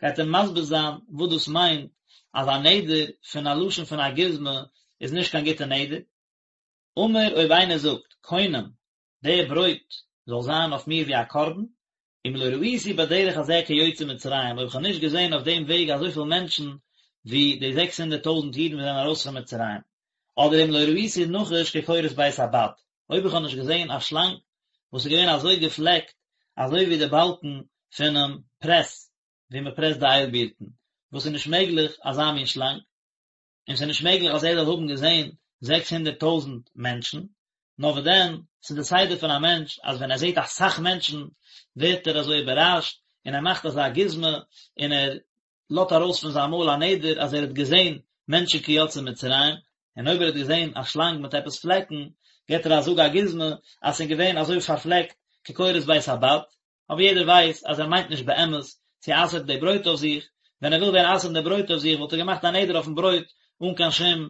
גייט ער מסביר זיין וואס דאס מיינט אז א נדר פון א לשון פון א גוזמא איז נישט קיין גוטע נדר. אמר אויב איינער זאגט קונם דער ברויט זאל זיין אויף מיר ווי א קרבן, אם לא ראיתי בדרך הזה כיוצאי מצרים, אויב איך האב נישט געזען אויף דעם וועג אזויפיל מענטשן ווי די זעקס הונדערט טויזנט אידן וואס זענען ארויס פון מצרים, אדער אם לא ראיתי נחש כקורת בית הבד, אויב איך האב נישט געזען א שלאנג וואס איז געווען אזוי געפלעקט אזוי ווי די באלקן פונעם פרעס ווי מען פרעסט די איילבירטן, וואס איז נישט מעגליך אזא מין שלאנג, און ס'איז נישט מעגליך אז ער זאל האבן געזען זעקס הונדערט טויזנט מענטשן, נאר וואס דען, ס'איז די סדר פון א מענטש אז ווען ער זעט אסאך מענטשן ווערט ער אזוי איבערראשט און ער מאכט אזא גוזמא און ער לאזט ארויס פון זיין מויל א נדר אז ער האט געזען מענטשן כיוצאי מצרים, און אויב ער האט געזען א שלאנג מיט עפעס פלעקן געט ער א זאג א גוזמא אז ס'איז געווען אזוי פארפלעקט כקורת בית הבד, אבער יעדער ווייסט אז ער מיינט נישט באמת צו אסר'ן די ברויט אויף זיך, ווען ער וויל ווען אסר'ן די ברויט אויף זיך וואלט ער געמאכט א נדר אויפן ברויט אן קיין שום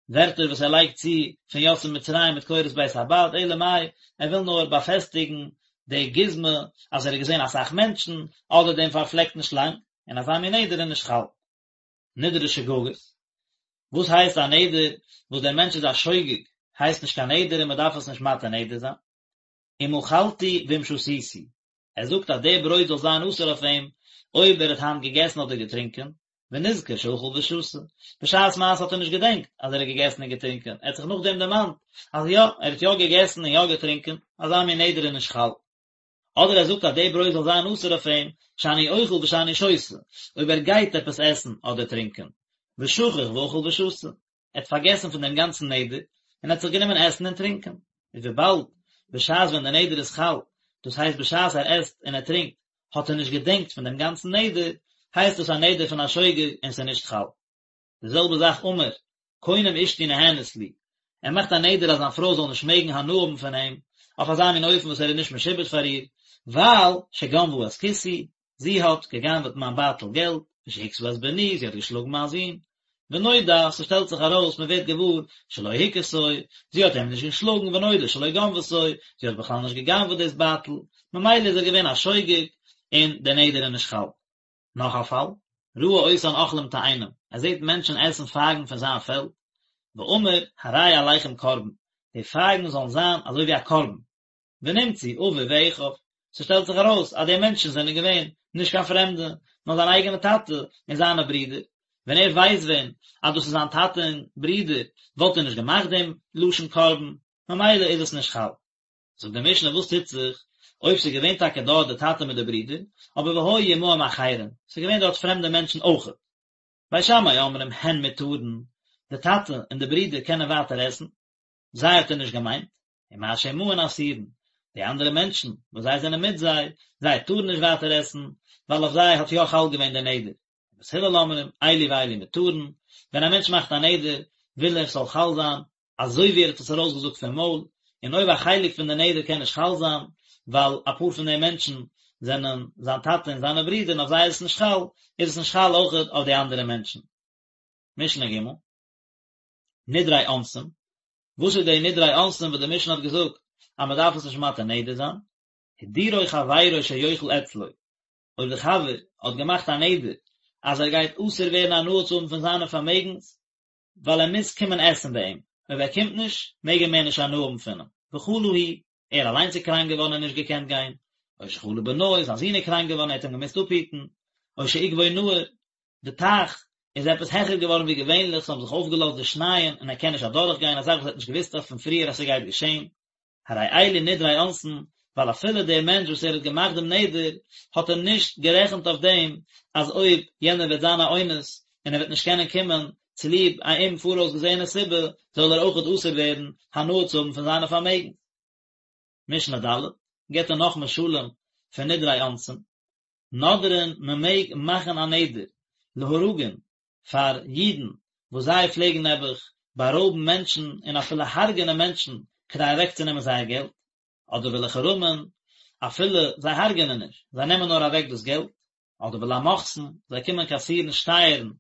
ווערטער וואס ער לייגט צו פון יוצאי מצרים מיט קורת בית הבד, אלא מאי ער וויל נאר באפעסטיגן די גוזמא אז ער האט געזען אסאך מענטשן, אדער דעם פארפלעקטן שלאנג, און אזא מין נדר איז נישט חל. נדרי שגגות, וואס הייסט א נדר וואס דער מענטש איז א שוגג הייסט נישט קיין נדר און מען דארף עס נישט מתיר נדר זיין. אם אכלתי ואם שתיתי, ער זאגט אז די ברויט זאל זיין אסור אויף אים אויב ער האט היינט געגעסן אדער געטרינקען, ונזכר שאכל ושתה, בשעת מעשה האט ער נישט געדענקט אז ער האט געגעסן און געטרינקען, ער האט זיך נאכדעם דערמאנט אז יא, ער האט יא געגעסן און יא געטרינקען, אזא מין נדר איז נישט חל. אדער ער זאגט אז די ברויט זאל זיין אסור אויף אים, שאני אוכל ושאני שותה, אויב ער גייט עפעס עסן אדער טרינקען, ושכח ואכל ושתה, ער האט פארגעסן פון דעם גאנצן נדר, און האט זיך גענומען עסן און טרינקען. איז וויבאלד בשעת ווען דער נדר איז חל, דאס הייסט בשעת ער עסט און ער טרינקט, האט ער נישט געדענקט פון דעם גאנצן נדר, הייסט דאס א נדר פון א שוגג און ס'איז נישט חל. די זעלבע זאך אמר, קונם אשתי נהנית לי, ער מאכט א נדר אז זיין פרוי זאל נישט מעגן הנאה האבן פון אים, אויף אזא מין אופן וואס ער איז נישט משועבד פאר איר, ווייל שגנבה את כיסי, זי האט גע'גנב'עט מיין בייטל געלט, ושהכתה את בני, זי האט געשלאגן מיין זון. ונודע, ס'שטעלט זיך ארויס, מ'ווערט געוואר, שלא הכתו, זי האט איהם נישט געשלאגן, ונודע שלא גנבתו, זי האט בכלל נישט גע'גנב'עט דאס בייטל, ממילא איז ער געווען א שוגג, און דער נדר איז נישט חל. נאך א פאל, ראה אותן אוכלים תאנים, ער זעט מענטשן עסן פייגן פון זיין פעלד, ואמר, הרי עליכם קרבן, די פייגן זאלן זיין אזוי ווי א קרבן, ונמצאו אביו ואחיו, ס'שטעלט זיך ארויס אז די מענטשן זענען געווען נישט קיין פרעמדע, נאר זיין אייגענע טאטע און זיינע ברידער, ווען ער ווייסט ווען אז דאס איז זיין טאטע און ברידער וואלט ער נישט געמאכט דעם לשון קרבן, ממילא איז עס נישט חל. זאגט די משנה וואס טוט זיך אויב ס'איז געווען טאקע דארט די טאטע מיט די ברידער, אבער והיו עמהם אחרים, ס'איז געווען דארט פרעמדע מענטשן אויכעט. בית שמאי אומרים הן מותרין, די טאטע און די ברידער קענען ווייטער עסן, זיי האט ער נישט געמיינט, ומה שעמהן אסורין, די אנדערע מענטשן וואס זיי זענען מיט זיי, זיי טארן נישט ווייטער עסן, ווייל אויף זיי האט יא חל געווען דער נדר. בית הלל אומרים, אלו ואלו מותרין, ווען א מענטש מאכט א נדר, וויל ער ס'זאל חל זיין, אזוי ווי ער האט עס ארויסגעזאגט פון מויל, און אויב א חלק פון די נדר קען נישט חל זיין, ווייל אפאר פון די מענטשן זענען זיין טאטע און זיינע ברידער און אויף זיי איז עס נישט חל, איז עס נישט חל אויכעט אויף די אנדערע מענטשן. משנה ג', נדרי אונסים, וואס איז די נדרי אונסים וואס די משנה האט געזאגט אז מען דארף עס נישט מתיר נדר זיין? הדירו חברו שיאכל אצלו, אויב די חבר האט געמאכט א נדר אז ער גייט אסור ווערן הנאה צו האבן פון זיינע פארמעגנס, ווייל ער מוז קומען עסן ביי אים, אויב ער קומט נישט, מעג ער מער נישט הנאה האבן פון אים, וחלה הוא, ער אליינס איז קראנק געווארן און נישט געקענט גיין, או שחלה בנו, זיין זון איז קראנק געווארן ער האט אים געמוזט אפהיטן, או שעיכבו נהר, די טייך איז עפעס העכער געווארן ווי געווענליך, ס'האבן זיך אויפגעלאזט די שנייען און ער קען נישט אדורך גיין, א זאך וואס ער האט נישט געוואוסט אויף פון פריער אז ס'גייט געשען, הרי אלו נדרי אונסין, ווייל אפילו דער מענטש וואס ער האט געמאכט דעם נדר, האט ער נישט גערעכנט אויף דעם אז אויב יענער וועט זיין א אונס און ער וועט נישט קענען קומען צוליב א אומפאראויסגעזעענע סיבה, זאל ער אויכעט אסור ווערן הנאה צו האבן פון זיינע פארמעגן. משנה ד', גיבט ער נאך משלים פון נדרי אונסין, נודרין מען מעג מאכן א נדר להרגין פאר אידן וואס זיי פלעגן נעבעך בארויבן מענטשן און אפילו הרג'נען מענטשן כדי אוועקצונעמען זייער געלט, אדער ולחרמין, אפילו זיי הרג'נען נישט, זיי נעמען נאר אוועק דאס געלט, אדער ולמוכסין, זיי קומען קאסירן שטייערן,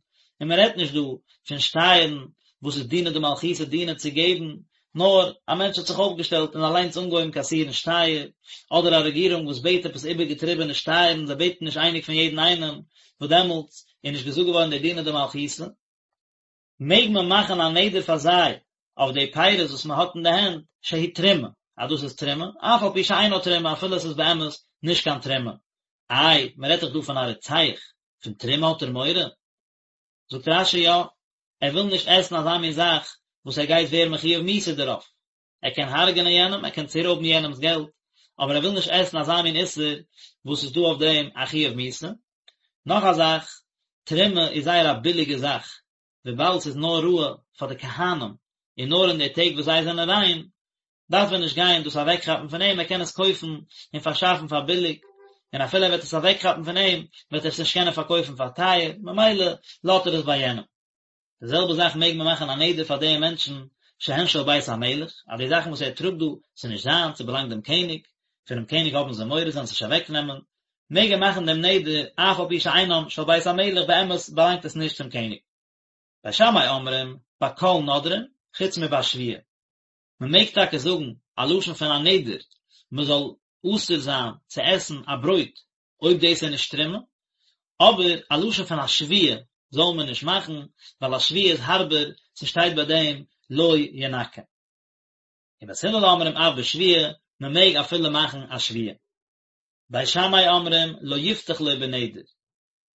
און מען רעדט נישט דא פון שטייערן וואס איז דינא דמלכותא דינא צו געבן, נאר א מענטש האט זיך אויפגעשטעלט און אליינס אנגעהויבן קאסירן שטייער, אדער א רעגירונג וואס בעט עפעס איבערגעטריבענע שטייערן, זיי בעטן נישט אייניג פון יעדן איינעם, וואס דעמאלטס איז נישט געזאגט געווארן די דינא דמלכותא, מעג מען מאכן א נדר פאר זיי אויף די פירות וואס מען האט אין די הענט, שהיא תרומה, אז דאס איז תרומה, אף על פי שאינה תרומה, אפילו עס איז באמת נישט קיין תרומה. איי, מען רעדט דאך דא פון א רוצח, פון תרומה האט ער מורא? זאגט רש"י יא, ער וויל נישט עסן אזא מין זאך וואס ער גייט ווערן מחויב מיתה דערויף, ער קען הרג'נען יענעם, ער קען צורויבן יענעמ'ס געלט, אבער ער וויל נישט עסן אזא מין איסור וואס איז דא אויף דעם א חיוב מיתה. נאך א זאך, תרומה איז זייער א ביליגע זאך, וויבאלד ס'איז נאר ראוי פאר די כהנים, און נאר אין די טעג וואס זיי זענען ריין, דארף ער נישט גיין דאס אוועקכאפן פון אים, ער קען עס קויפן און פארשאפן פאר ביליג, און אפילו ער וועט עס אוועקכאפן פון אים, וועט ער עס נישט קענען פארקויפן פאר טייער, ממילא לאזט ער עס ביי יענעם. די זעלבע זאך מעג מען מאכן א נדר פאר די מענטשן שהן של בית המלך, אז די זאכן וואס ער טראגט דא, ס'איז נישט זיינס, ס'באלאנגט דעם קעניג, פונעם קעניג האבן זיי מורא זיי זאלן עס נישט אוועקנעמען, מעג ער מאכן דעם נדר אף על פי שאינם של בית המלך, באמת באלאנגט עס נישט צום קעניג. בית שמאי אומרים, בכל נודרין, חוץ מבשבועה. מען מעג טאקע זאגן א לשון פון א נדר מען זאל אסור זיין צו עסן א ברויט אויב דאס איז נישט תרומה, אבער א לשון פון א שבועה זאל מען נישט מאכן, ווייל א שבועה איז הארבער, ס'שטייט ביי דעם לא ינקה. ובית הלל אומרים אף בשבועה, מען מעג אפילו מאכן א שבועה. בית שמאי אומרים לא יפתח לו בנדר,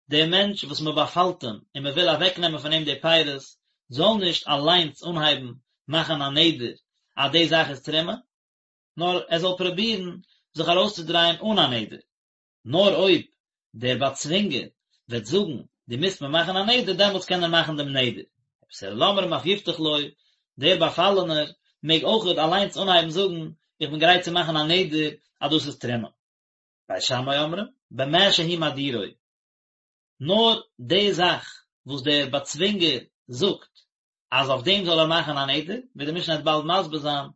דער מענטש וואס מען באפאלט אים און מען וויל אוועקנעמען פון אים די פירות, זאל נישט אליינס אנהייבן מאכן א נדר אז די זאך איז תרומה, נאר ער זאל פרובירן זיך ארויסצודרייען אן א נדר. נאר אויב דער באצווינגער וועט זאגן דו מוזט מיר מאכן א נדר, דעמאלטס קען ער מאכן דעם נדר. ובית הלל אומרים אף יפתח לו, דער באפאלענער מעג אויכעט אליינס אנהייבן זאגן איך בין גרייט צו מאכן א נדר אז דאס איז תרומה. בית שמאי אומרים, במה שהוא מדירו. נאר די זאך וואס דער באצווינגער זאגט אז אויף דעם זאל ער מאכן א נדר, ווי די משנה וועט באלד מסביר זיין,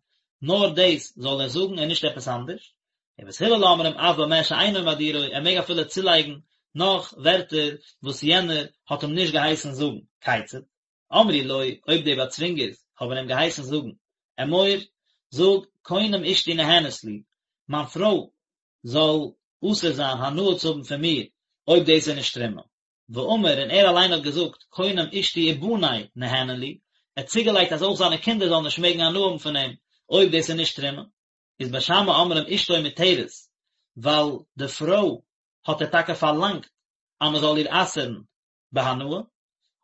נאר דאס זאל ער זאגן און נישט עפעס אנדערש. ובית הלל אומרים אף במה שאינו מדירו, ער מעג אפילו צולייגן נאך ווערטער וואס יענער האט אים נישט געהייסן זאגן. כיצד? אמרו לו, אויב די באצווינגערס האבן אים געהייסן זאגן, אמור, זאג, קונם אשתי נהנית לי, מיין פרוי זאל אסור זיין הנאה צו האבן פון מיר, אויב דאס איז נישט תרומה. ואמר, און ער אליין האט געזאגט, קונם אשתי ובני נהנין לי, ער האט צוגעלייגט אז אויך זיינע קינדער זאלן נישט מעגן הנאה האבן פון אים, אויב דאס איז נישט תרומה. איז בית שמאי אומרים אשתו מותרת, ווייל די פרוי האט ער טאקע פארלאנגט אז מען זאל איר אסר'ן בהנאה,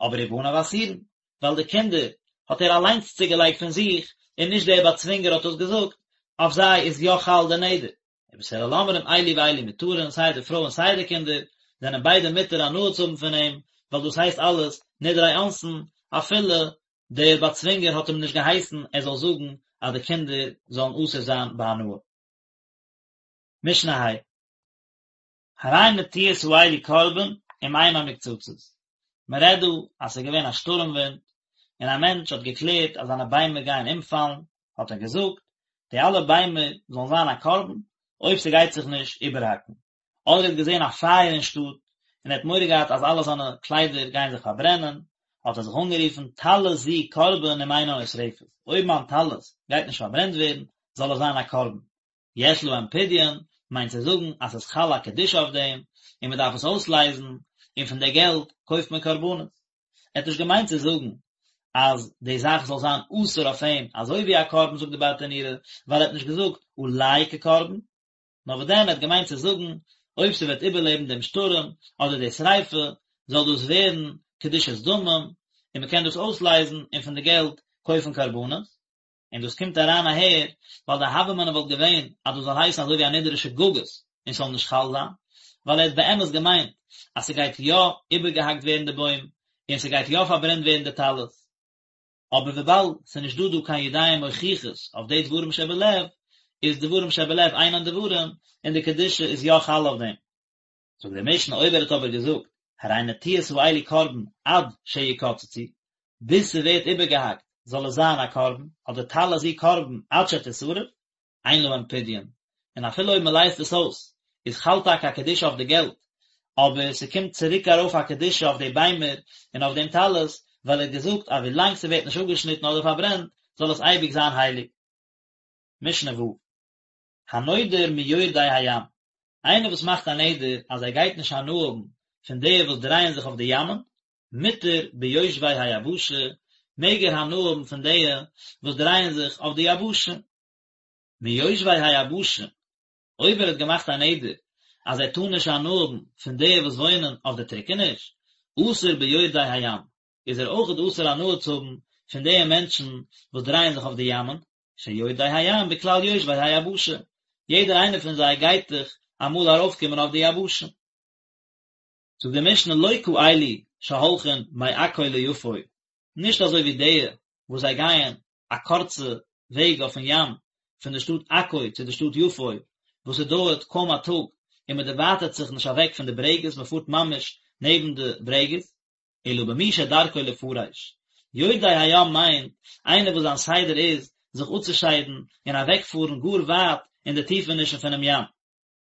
אבער ובניו אסורין, ווייל די קינדער האט ער אליינס צוגעלייגט פון זיך, און נישט דער באצווינגער האט דאס געזאגט, אויף זיי איז יא חל דער נדר. ובית הלל אומרים אלו ואלו מותרין, סיי די פרוי און סיי די קינדער, זענען ביידע מותר הנאה צו האבן פון אים, ווייל דאס הייסט אלעס נדרי אונסין, אפילו דער באצווינגער האט אים נישט געהייסן ער זאל זאגן אז די קינדער זאלן אסור זיין בהנאה. משנה ה'. הרי נטיעות האלו קרבן אם אינן מוקצצות. מען רעדט דא אז ס'איז געווען א שטורעם ווינט, און א מענטש האט געקלערט אז זיינע ביימער גייען אומפאלן, האט ער געזאגט, די אלע ביימער זאלן זיין א קרבן, אויב ס'גייט זיך נישט איבערהאקן. אדער ער האט געזען א פייער אין שטאט, און ער האט מורא געהאט אז אלע זיינע קליידער גייען זיך פארברענען, האט ער זיך אנגערופן, טלית זו קרבן אם אינה נשרפת, אויב מיין טלית גייט נישט פארברענט ווערן, זאל עס זיין א קרבן. יש להם פדיון, מיינט צו זאגן אז ס'איז חל א קדושה אויף דעם, און מען דארף עס אויסלייזן, און פון די געלט קויפט מען קרבנות. ער האט נישט געמיינט צו זאגן אז די זאך זאל זיין אסור אויף אים אזוי ווי א קרבן זאגט די ברטנורא, ווייל ער האט נישט געזאגט עלי כקרבן, נאר וואס דען ער האט געמיינט צו זאגן אויב ס'וועט איבערלעבן דעם שטורעם אדער די שריפה זאל דאס ווערן קדושת דמים און מ'קען דאס אויסלייזן און פון די געלט קויפן קרבנות. און דאס קומט אריין אהער ווייל די הוה אמינא וואלט געווען אז דאס זאל הייסן אזוי ווי א נדר שגגות און ס'זאל נישט חל זיין, ווייל ער האט באמת געמיינט אז ס'גייט יא איבערגעהאקט ווערן די בוים און ס'גייט יא פארברענט ווערן די טלית, אבער וויבאלד ס'איז נישט דא דא קיין ידיים מוכיחות אויף די דברים שבלב, איז דברים שבלב אינן דברים און די קדושה איז יא חל אויף דעם. זאגט די משנה אויב ער האט אבער געזאגט הרי נטיעות האלו קרבן עד שיקצצו, ביז ס'ווערט איבערגעהאקט זאל עס זיין א קרבן, אדער טלית זו קרבן עד שתשרף, אין להם פדיון, און אפילו אויב מ'לייזט עס אויס איז חל טאקע א קדושה אויף די געלט, אבער ס'קומט צוריק ארויף א קדושה אויף די ביימער און אויף דעם טלית, ווייל ער האט געזאגט אז ווילאנג ס'ווערט נישט אפגעשניטן אדער פארברענט זאל עס אייביג זיין הייליג. משנה ו'. הנודר מיורדי הים, איינער וואס מאכט א נדר אז ער גייט נישט הנאה האבן פון די וואס דרייען זיך אויף די ימ'ען, מותר ביושבי היבשה, מעג ער הנאה האבן פון די וואס דרייען זיך אויף די יבשה. מיושבי היבשה, אויב ער האט געמאכט א נדר אז ער טאר נישט הנאה האבן פון די וואס וואוינען אויף די טריקעניש, אסור ביורדי הים, איז ער אויכעט אסור הנאה צו האבן פון די מענטשן וואס דרייען זיך אויף די ימ'ען, שיורדי הים בכלל יושבי היבשה, יעדער איינער פון זיי גייט דאך אמאל ארויפקומען אויף די יבשה. זאגט די משנה לא כאלו שהולכין מעכו ליפו, נישט אזוי ווי די וואס זיי גייען א קורצע וועג אויפן ים פון די שטאט עכו צו די שטאט יפו, וואס עס דויערט קוים א טאג און מען דערווייטערט זיך נישט אוועק פון די ברעגעס, מען פארט ממש נעבן די ברעגעס, אלא במי שדרכו לפרש. יורדי הים מיינט איינער וואס זיין סדר איז זיך אפצושיידן און אוועקפארן גאר ווייט אין די טיפענישן פונעם ים.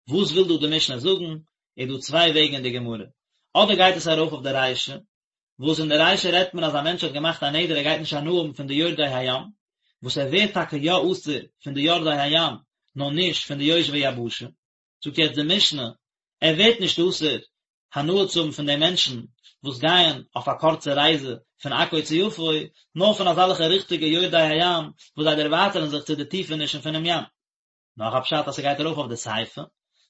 וואס וויל דא די משנה זאגן? איז דא צוויי וועגן אין די גמרא. אדער גייט עס ארויף אויף די רישא, וואס אין די רישא רעדט מען אז א מענטש האט געמאכט א נדר ער גייט נישט הנאה האבן פון די יורדי הים, וואס ער ווערט טאקע יא אסור פון די יורדי הים, נאר נישט פון די יושבי יבשה. זאגט יעצט די משנה, ער ווערט נישט אסור הנאה צו האבן פון די מענטשן וואס גייען אויף א קורצע רייזע פון עכו צו יפו, נאר פון אזעלכע ריכטיגע יורדי הים וואס זיי דערווייטערן זיך צו די טיפענישן פונעם ים. נאך א פשט אז ס'גייט ארויף אויף די סיפא,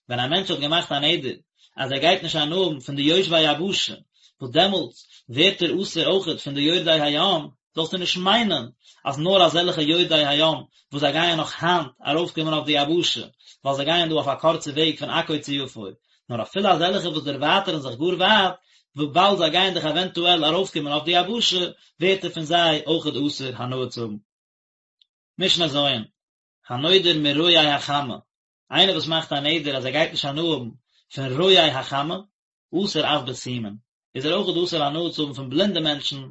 ווען א מענטש האט געמאכט א נדר אז ער גייט נישט הנאה האבן פון די יושבי היבשה, וואס דעמאלטס ווערט ער אסור אויכעט פון די יורדי הים, זאלסטו נישט מיינען אז נאר אזעלכע יורדי הים וואס זיי גייען נאך היינט ארויפקומען אויף די יבשה, ווייל זיי גייען דא אויף א קורצע וועג פון עכו צו יפו, נאר אפילו אזעלכע וואס דערווייטערן זיך גאר ווייט, וויבאלד זיי גייען דאך עווענטועל ארויפקומען אויף די יבשה, ווערט ער פון זיי אויכעט אסור הנאה צו האבן. משנה ז', הנודר מרואי החמה, איינער וואס מאכט א נדר אז ער גייט נישט הנאה האבן פון רואי החמה, אסור אף בסומין, איז ער אויכעט אסור הנאה צו האבן פון בלינדע מענטשן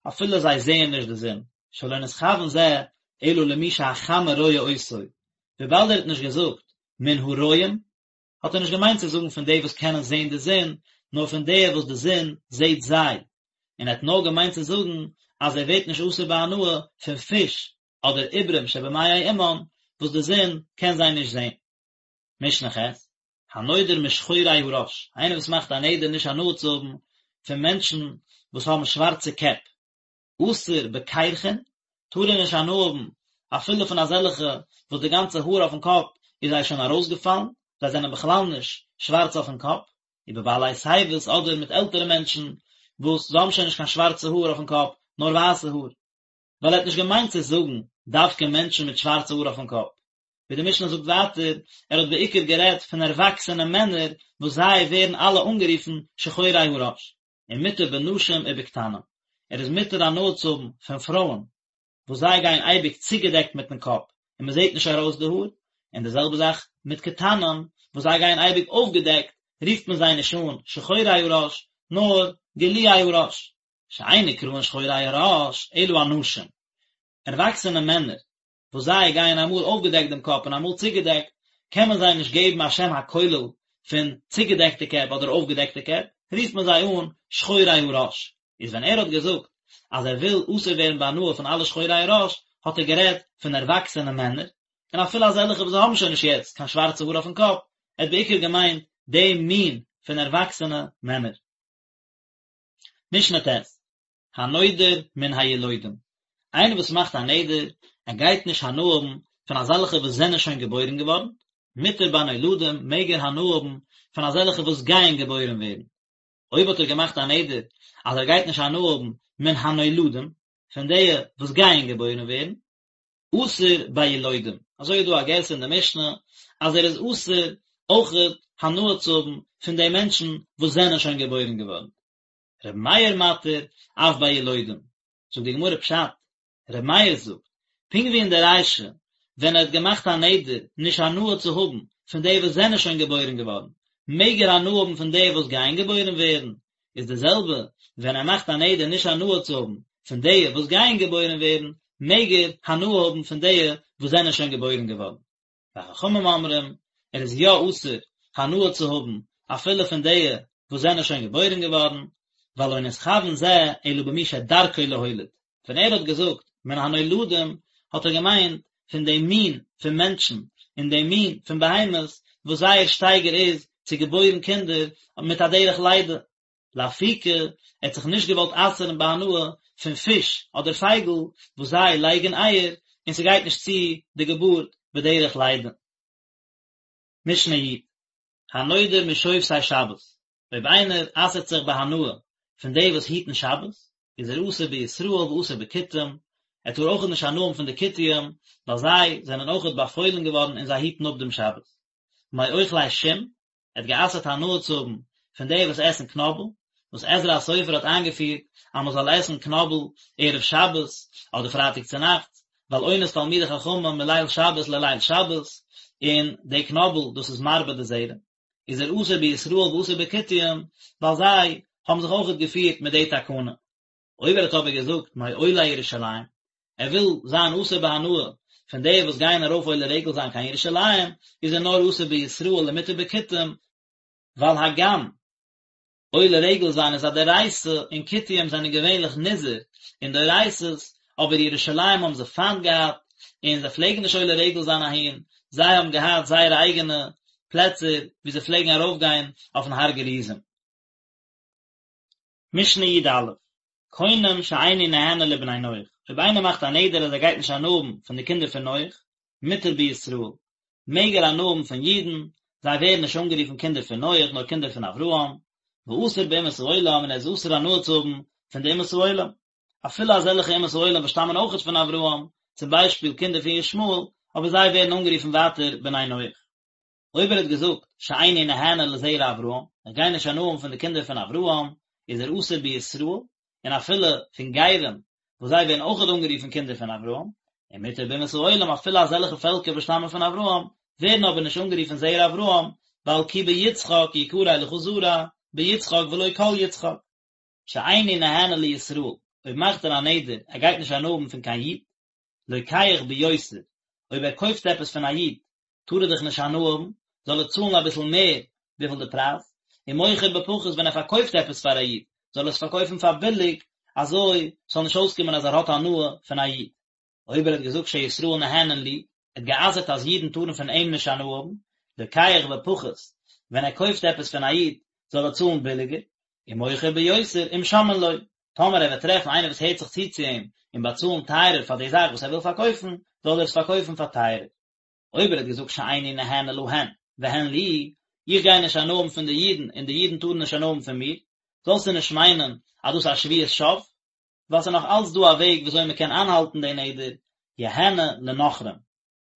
אפילו זיי זעען נישט די זון, שלא נתכוון זה אלא למי שהחמה רואה אותו, וויבאלד ער האט נישט געזאגט מן הרואים, האט ער נישט געמיינט צו זאגן פון די וואס קענען זען די זון, נאר פון די וואס די זון זעט זיי, און ער האט נאר געמיינט צו זאגן. אז ער ווערט נישט אסור בהנאה פון פיש אדער עוברים שבמעי אמן וואס די זון קען זיי נישט זען. משנה ח', הנודר משחורי הראש, איינער וואס מאכט א נדר נישט הנאה צו האבן פון מענטשן וואס האבן שווארצע קעפ, אסור בקרחין, טאר ער נישט הנאה האבן אפילו פון אזעלכע וואס די גאנצע האר אויפן קאפ איז זיי שוין ארויסגעפאלן, זיי זענען בכלל נישט שווארץ אויפן קאפ, ובבעלי שיבות אדער מיט עלטערע מענטשן וואס זיי האבן שוין נישט קיין שווארצע האר אויפן קאפ, נאר ווייסע האר. ווייל ער האט נישט געמיינט צו זאגן דווקא מענטשן מיט שווארצע האר אויפן קאפ. ווי די משנה זאגט ווייטער, ער האט בעיקר גערעדט פון ערוואקסענע מענער וואס זיי ווערן אלע אנגערופן שחורי הראש. ומותר בנשים ובקטנים, ער איז מותר הנאה צו האבן פון פרויען וואס זיי גייען אייביג צוגעדעקט מיטן קאפ און מען זעט נישט ארויס די האר, און די זעלבע זאך מיט קטנים וואס זיי גייען אייביג אויפגעדעקט, רופט מען זיי נישט אן שחורי הראש, נאר גלויי הראש. שאין נקראין שחורי הראש אלא אנשים, ערוואקסענע מענער וואס זיי גייען אמאל אויפגעדעקט דעם קאפ און אמאל צוגעדעקט, קען מען זיי נישט געבן א שם הכולל פון צוגעדעקטע קעפ אדער אויפגעדעקטע קעפ, רופט מען זיי אן שחורי הראש. איז ווען ער האט געזאגט אז ער וויל אסור ווערן בהנאה פון אלע שחורי הראש, האט ער גערעדט פון ערוואקסענע מענער, און אפילו אזעלכע וואס האבן שוין נישט יעצט קיין שווארצע האר אויפן קאפ, ער האט בעיקר געמיינט די מין פון ערוואקסענע מענער. משנה ט'. הנודר מן הילודים, איינער וואס מאכט א נדר, ער גייט נישט הנאה האבן פון אזעלכע וואס זענען שוין געבוירן געווארן, מותר בנולדים, מעג ער הנאה האבן פון אזעלכע וואס גייען געבוירן ווערן. אויב האט ער געמאכט א נדר אז ער גייט נישט הנאה האבן מן הנולדים, פון די וואס גייען געבוירן ווערן, אסור בילודים, אזוי איז דא א גירסא אין די משנה אז ער איז אסור אויכעט הנאה צו האבן פון די מענטשן וואס זענען שוין געבוירן געווארן. ר' מאיר מתיר אף בילודים, זאגט די גמרא פשט, ר' מאיר זאגט, פונקט ווי אין די רישא ווען ער האט געמאכט א נדר נישט הנאה צו האבן פון די וואס זענען שוין געבוירן געווארן, מעג ער הנאה האבן פון די וואס גייען געבוירן ווערן, איז די זעלבע ווען ער מאכט א נדר נישט הנאה צו האבן פון די וואס גייען געבוירן ווערן, מעג ער הנאה האבן פון די וואס זענען שוין געבוירן געווארן. וחכמים אומרים, ער איז יא אסור הנאה צו האבן אפילו פון די וואס זענען שוין געבוירן געווארן, ווייל לא נתכוון זה אלא במי שדרכו להוליד, ווען ער האט געזאגט מן הנולדים האט ער געמיינט פון די מין פון מענטשן און די מין פון בהמות וואס זייער שטייגער איז צו געבוירן קינדער מיט א דרך לידה, לאפוקי, ער האט זיך נישט געוואלט אסר'ן בהנאה פון פיש אדער פייגל וואס זיי לייגן אייער און ס'גייט נישט צו די געבורט בדרך לידה. משנה י', הנודר משובתי שבת, אויב איינער אסר'ט זיך בהנאה פון די וואס היטן שבת, איז ער אסור בישראל ואסור בכותים, ער טאר אויכעט נישט הנאה האבן פון די כותים, ווייל זיי זענען אויכעט באפוילן געווארן און זיי היטן אפ דעם שבת. מאוכלי שום, ער האט גע'אסר'ט הנאה צו האבן פון די וואס עסן קנאבל, וואס עזרא הסופר האט איינגעפירט אז מען זאל עסן קנאבל ערב שבת אדער פרייטאג צונאכטס, ווייל עונת תלמידי חכמים מליל שבת לליל שבת, און די קנאבל דאס איז מרבה די זרע, איז ער אסור בישראל ואסור בכותים, ווייל זיי האבן זיך אויכעט געפירט מיט די תקנה. אויב ער האט אבער געזאגט מעולי ירושלים, ער וויל זיין אסור בהנאה פון די וואס גייען ארויף עולה רגל זיין קיין ירושלים, איז ער נאר אסור בישראל ומותר בכותים, ווייל הגם עולה רגל זיין איז א דאורייתא און כותים זענען געווענליך נזהר אין דאורייתא'ס, אבער ירושלים האבן זיי פיינט געהאט און זיי פלעגן נישט עולה רגל זיין אהין, זיי האבן געהאט זייערע אייגענע פלעצער וואו זיי פלעגן ארויפגיין אויפן הר גריזים. משנה י"א, קונם שאיני נהנה לבני נח, אויב איינער מאכט א נדר אז ער גייט נישט הנאה האבן פון די קינדער פון נח, מותר בישראל, מעג ער הנאה האבן פון אידן, זיי ווערן נישט אנגערופן קינדער פון נח נאר קינדער פון אברהם, ואסור באומות העולם און ער איז אסור הנאה צו האבן פון די אומות העולם, אפילו אזעלכע אומות העולם וואס שטאמען אויכעט פון אברהם, צום ביישפיל קינדער פון ישמעאל, אבער זיי ווערן אנגערופן ווייטער בני נח. אויב ער האט געזאגט שאיני נהנה לזרע אברהם, איך גיי נישט הנאה האבן פון די קינדער פון אברהם, איז ער אסור בישראל, און אפילו פון גרים, וואס זיי ווערן אויכעט אנגערופן קינדער פון אברהם, ומותר באומות העולם, אפילו אזעלכע פעלקער וואס שטאמען פון אברהם, ווערן אבער נישט אנגערופן זרע אברהם, ווייל כי ביצחק יקרא לך זרע, ביצחק ולא כל יצחק. שאיני נהנה לישראל, אויב מאכט ער א נדר, ער גייט נישט הנאה האבן פון קיין איד, לוקח ביותר, אויב ער קויפט עפעס פון א איד, טאר ער דאך נישט הנאה האבן, זאל ער צאלן אביסל מער וויפיל די פרייז, ומוכר בפחות ווען ער פארקויפט עפעס פאר א איד, זאל ער עס פארקויפן פאר ביליג, אזוי ס'זאל נישט אויסקומען אז ער האט הנאה פון א איד. אויב ער האט געזאגט שישראל נהנין לי, ער האט גע'אסר'ט אז אידן טארן פון אים נישט הנאה האבן, לוקח בפחות, ווען ער קויפט עפעס פון א איד זאל ער צאלן ביליגער, ומוכר ביותר אם שומעין לו, טאמער ער וועט טרעפן איינער וואס הערט זיך צו צו אים און באצאלן טייערער פאר די זאך וואס ער וויל פארקויפן, זאל ער עס פארקויפן פאר טייערער. אויב ער האט געזאגט שאיני נהנה להן והן לי, איך גיי נישט הנאה האבן פון די אידן און די אידן טארן נישט הנאה האבן פון מיר, זאלסטו נישט מיינען אז דאס איז א שבועת שוא, ווייל ס'איז נאך אלץ דא א וועג וויאזוי מ'קען איינהאלטן די נדר, יהנה לנכרים,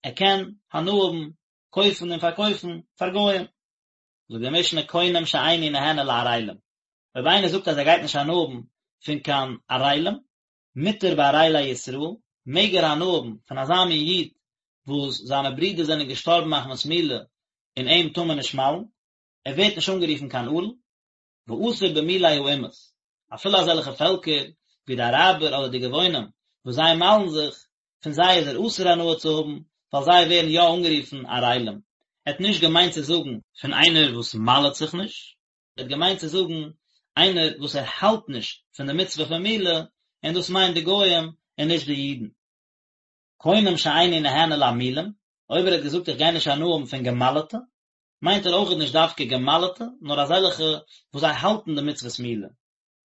ער קען הנאה האבן, קויפן און פארקויפן, פאר גוים. זאגט די משנה קונם שאיני נהנה לערלים, אויב איינער זאגט אז ער גייט נישט הנאה האבן פון קיין ערלים, מותר בערלי ישראל, מעג ער הנאה האבן פון אזא מין איד וואס זיינע ברידער זענען געשטארבן מחמת מילה און אים טאר מען נישט מל'ן, ער ווערט נישט אנגערופן קיין ערל, ואסור במולי האומות, אפילו אזעלכע פעלקער ווי די אראבער אדער די גבעונים וואס זיי מל'ן זיך, פון זיי איז ער אסור הנאה צו האבן, ווייל זיי ווערן יא אנגערופן ערלים. ער האט נישט געמיינט צו זאגן פון איינער וואס מל'ט זיך נישט, ער האט געמיינט צו זאגן איינער וואס ער האלט נישט פון די מצוה פון מילה, און דאס מיינט די גוים און נישט די אידן. קונם שאיני נהנה להמולים, אויב ער האט געזאגט איך גיי נישט הנאה האבן פון געמל'טע, מיינט ער אויכעט נישט דווקא געמל'טע, נאר אזעלכע וואס זיי האלטן די מצוות מילה,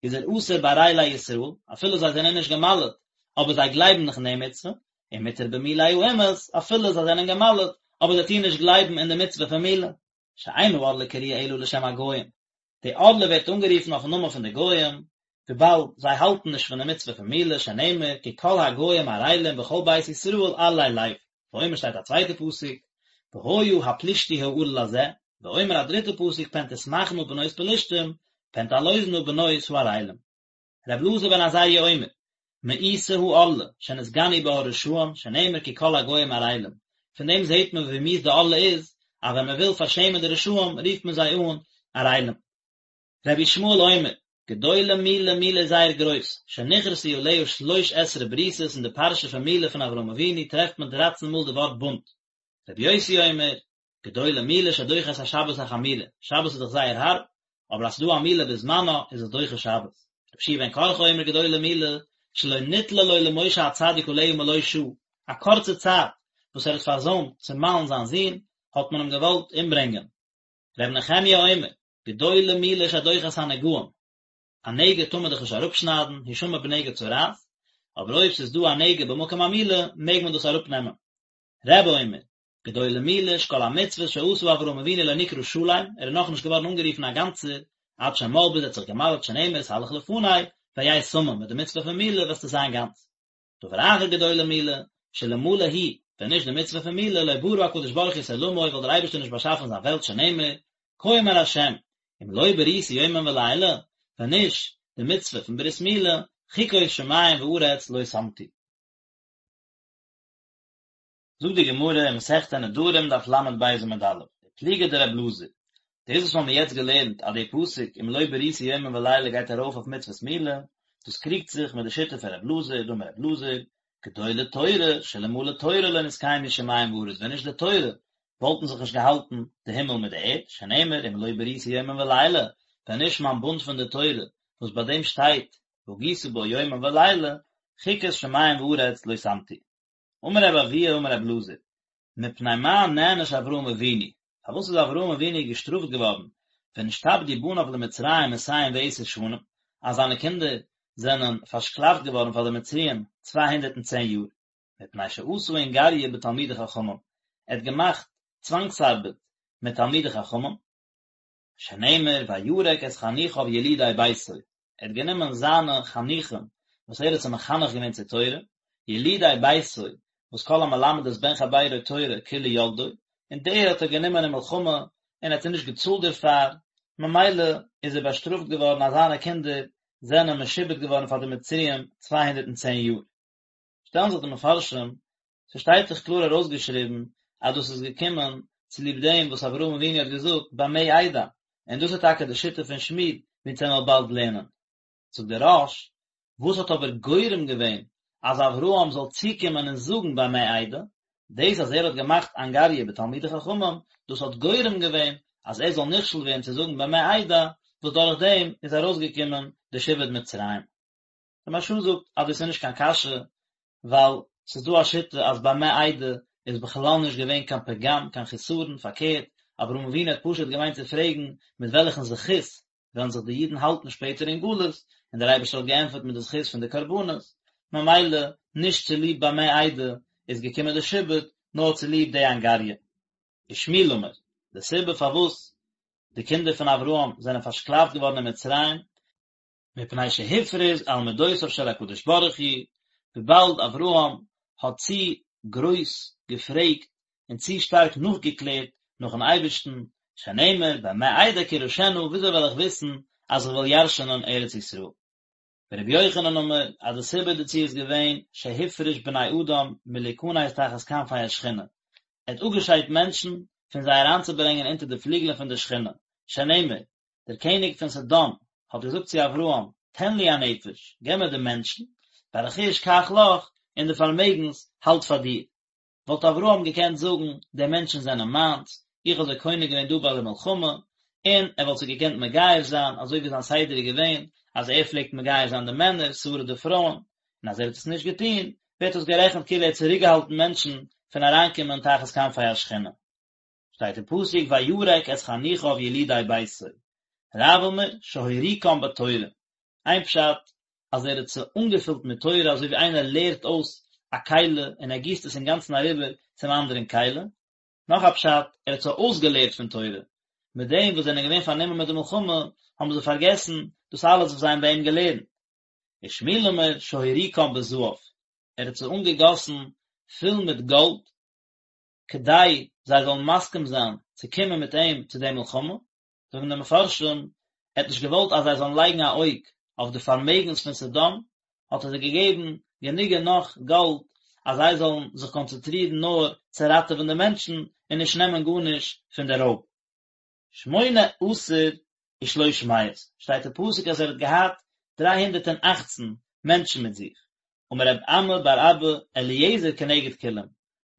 איז ער אסור בערלי ישראל, אפילו זיי זענען נישט געמל'ט, אבער זיי גלייבן נאך אין די מצוה, און מותר במולי האומות, אפילו זיי זענען געמל'ט, אבער זיי טוען נישט גלייבן אין די מצוה פון מילה. שאין הערלה קרויה אלא לשם הגוים, די ערלה ווערט אנגערופן אויפן נאמען פון די גוים, וויבאלד זיי האלטן נישט פון די מצוה פון מילה, שנאמר כי כל הגוים ערלים וכל בית ישראל ערלי לב, ואומר שטייט א צווייטע פסוק, והיה הפלישתי הערל הזה, ואומר א דריטע פסוק פן תשמחנה בנות פלשתים, פן תעלוזנה בנות הערלים. ר' אלעזר בן עזריה אומר, מאוסה הערלה, שנתגנו בה הרשעים, שנאמר כי כל הגוים ערלים. פון דעם זעט מען ווי מיאוס די ערלה איז, אז ווען מען וויל פארשעמען די רשעים רופט מען זיי אן ערלים. רבי ישמעאל אומר, גדולה מילה, מילה איז זייער גרויס, שנכרתו עליה שלש עשרה בריתות אין די פרשה פון מילה פון אברהם אבינו טרעפט מען דרייצן מאל די ווארט בונד. רבי יוסי אומר, גדולה מילה שדוחה את השבת החמורה, שבת איז דאך זייער הארב, אבער אז ס'דא א מילה בזמנה איז עס דוחה שבת. רבי יהושע בן קרחה אומר גדולה מילה שלא ניתנה לו למשה הצדיק עליה מלא שעה, א קורצע צייט וואס ער האט פארזוימט צו מל'ן זיין זון האט מען אים געוואלט אומברענגען. ר' נחמיה אומר, גדולה מילה שדוחה את הנגעים, א נגע טאר מען דאך נישט אראפשניידן, השמר בנגע צרעת, אבער אויב ס'איז דא א נגע במקום המילה מעג מען דאס אראפנעמען. רבי אומר, גדולה מילה שכל המצוות שעשה אברהם אבינו לא נקרא שלם, ער איז נאכנישט געווארן אנגערופן א גאנצער, עד שמל ביז ער האט זיך געמל'ט שנאמר התהלך לפני, והיה תמים, מיט די מצוה פון מילה וועסטו זיין גאנץ. דבר אחר גדולה מילה, שאלמלא היא, ווען נישט די מצוה פון מילה, לא ברא הקדוש ברוך הוא את עולמו, וואלט דער אייבערשטער נישט באשאפן זיין וועלט שנאמר, כה אמר השם, אם לא בריתי יומם ולילה, ווען נישט די מצוה פון ברית מילה, חוקות שמים וארץ לא שמתי. זאגט די גמרא אין מסכת נדרים דף ל"ב עמוד א', ופליגא דר' אלעזר, דאס וואס מ'האמיר יעצט געלערנט אז די פסוק אם לא בריתי יומם ולילה גייט ארויף אויף מצוות מילה, דאס קריגט זיך מיט די שיטה פון ר' אלעזר, דאמר ר' אלעזר, גדולה תורה, שאלמלא תורה לא נתקיימו שמים וארץ, ווען נישט די תורה וואלטן זיך נישט געהאלטן די הימל מיט די ערד, שנאמר אם לא בריתי יומם ולילה, ווען נישט מיין בונד פון די תורה וואס ביי דעם שטייט והגית בו יומם ולילה, חוקות שמים וארץ לא שמתי. אמר רבי אבהו אמר רבי אלעזר, מפני מה נענש אברהם אבינו, פארוואס איז אברהם אבינו געשטראפט געווארן ונשתעבדו בניו למצרים מאתים ועשר שנים, אז זיינע קינדער זענען פארשקלאפט געווארן פאר די מצריים 210 יאר, מפני שעשה אנגריא בתלמידי חכמים, ער האט געמאכט צוואנגס-ארבעט מיט תלמידי חכמים, שנאמר וירק את חניכיו ילידי ביתו, ער האט גענומען זיינע חניכים וואס ער האט זיי מחנך געווען צו תורה, ילידי ביתו, וואס כל המלמד את בן חבירו תורה כאילו ילדו, און די האט ער גענומען אין מלחמה און ער האט זיי נישט געצאלט דערפאר, ממילא איז ער באשטראפט געווארן אז זיינע קינדער זענען משועבד געווארן פאר די מצריים 210 יאר. שטעלן זיך די מפרשים, ס'שטייט דאך קלאר ארויסגעשריבן אז דאס איז געקומען צוליב דעם וואס אברהם אבינו האט געזאגט במה אדע, און דאס איז טאקע די שיטה פון שמואל ווי אונז וועלן באלד לערנען. זאגט דער רא"ש, וואס האט אבער גורם געווען אז אברהם זאל צוקומען און זאגן במה אדע, דאס אז ער האט געמאכט אנגריא בתלמידי חכמים, דאס האט גורם געווען אז ער זאל נכשל ווערן צו זאגן במה אדע, וואס דורך דעם איז ארויסגעקומען די שעבוד מצרים. דער מהרש"א זאגט אז דאס איז נישט קיין קשיא, ווייל ס'איז דא א שיטה אז במה אדע איז בכלל נישט געווען קיין פגם, קיין חיסרון, פארקערט, אברהם אבינו האט פשוט געמיינט צו פרעגן מיט וועלכן זכות וועלן זיך די אידן האלטן שפעטער אין גלות, און דער אייבערשטער האט געענטפערט מיט די זכות פון די קרבנות, ממילא נישט צוליב במה אדע איז געקומען די שעבוד, נאר צוליב די אנגריא. ושמואל אמר, די סיבה פארוואס די קינדער פון אברהם זענען פארשקלאפט געווארן אין מצרים, מפני שהפריז על מדותיו של הקדוש ברוך הוא, וויבאלד אברהם האט צו גרויס געפרעגט און צו שטארק נאכגעקלערט נאכן אייבערשטן, שנאמר במה אדע כי אירשנה, וויאזוי וועל איך וויסן אז איך וועל ירש'נען ארץ ישראל? ורבי יוחנן אמר אז די סיבה דערצו איז געווען שהפריש בני אדם מלהיכנס תחת כנפי השכינה, ער האט אפגעשיידט מענטשן פון זיי אריינצוברענגען אונטער די פליגלען פון די שכינה, שנאמר, דער קעניג פון סדום האט געזאגט צו אברהם, תן לי הנפש, געב מיר די מענטשן, והרכוש קח לך, און די פארמעגנס האלט פאר דיר. וואלט אברהם געקענט זאגן, די מענטשן זענען מיינס, איך האב זיי קונה געווען דא ביי די מלחמה, און ער וואלט זיי געקענט מגייר זיין, אזוי ווי זיין סדר איז געווען, אז ער פלעגט מגייר זיין די מענער, שרה די פרויען, און אז ער האט עס נישט געטון, ווערט עס גערעכנט כאילו ער האט צוריקגעהאלטן מענטשן פון אריינקומען תחת כנפי השכינה. שטייט אין פסוק וירק את חניכיו ילידי ביתו, רב אמר שהוריקם בתורה, איין פשט אז ער האט זיי אנגעפילט מיט תורה אזוי ווי איינער לערט אויס א כלי און ער גיסט עס אינגאנצן אריבער צום אנדערן כלי, נאך א פשט ער האט זיי אויסגעלערט פון תורה, מיט דעם וואס זענען געווען פארנומען מיט די מלחמה האבן זיי פארגעסן דאס אלעס וואס זיי האבן ביי אים געלערנט. ושמואל אמר שהוריקם בזהב, ער האט זיי אנגעגאסן פול מיט גאלד, כדי זיי זאלן מסכים זיין צו קומען מיט אים צו די מלחמה, זאגן די מפרשים, ער האט נישט געוואלט אז זיי זאלן לייגן א אויג אויף די פארמעגנס פון סדום, האט ער זיי געגעבן גענוג און נאך גאלד אז זיי זאלן זיך קאנצענטרירן נאר צו ראטעווען די מענטשן און נישט נעמען גארנישט פון די רויב. שמונה עשר ושלוש מאות, שטייט אין פסוק אז ער האט געהאט דריי הונדערט און אכצן מענטשן מיט זיך, אמר רב אמי בר אבא אליעזר כנגד כולם,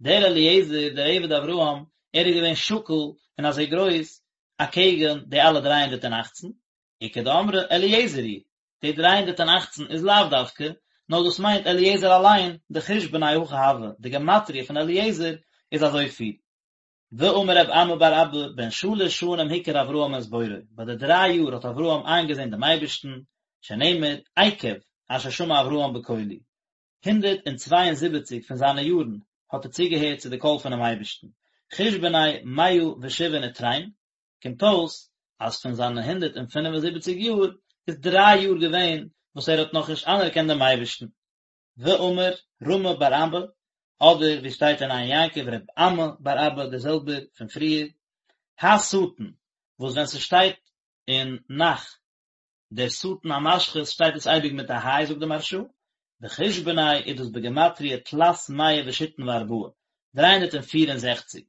דער אליעזר דער עבד אברהם, ער איז געווען שקול און אזוי גרויס אקעגן די אלע דריי הונדערט און אכצן, איכא דאמרי אליעזר הוא, די דריי הונדערט און אכצן איז לאו דווקא, נאר דאס מיינט אליעזר אליין, דחושבניה הכי הוה, די גמטריא פון אליעזר איז אזויפיל. ואמר רב אמי בר אבא, בן שלש שנים הכיר אברהם את בוראו, ביי די דריי יאר האט אברהם איינגעזען דעם אייבערשטן, שנאמר, עקב אשר שמע אברהם בקולי, 172 פון זיינע יארן האט ער צוגעהערט צו די קול פונעם אייבערשטן, חושבניה מאה ושבעין ותרין, קומט אויס אז פון זיינע 175 יאר איז דריי יאר געווען וואס ער האט נאכנישט אנערקענט דעם אייבערשטן. ואמר רמי בר אבא, אדער ווי שטייט אין עין יעקב רב אמי בר אבא דער זעלבער פון פריער, השטן, וואס ווען ס'שטייט אין נ"ך דער שטן המשחית שטייט עס אייביג מיט א היי זאגט די מהרש"א, וחושבניה איז דאס בגימטריא תלת מאה ושיתין וארבעה, 364,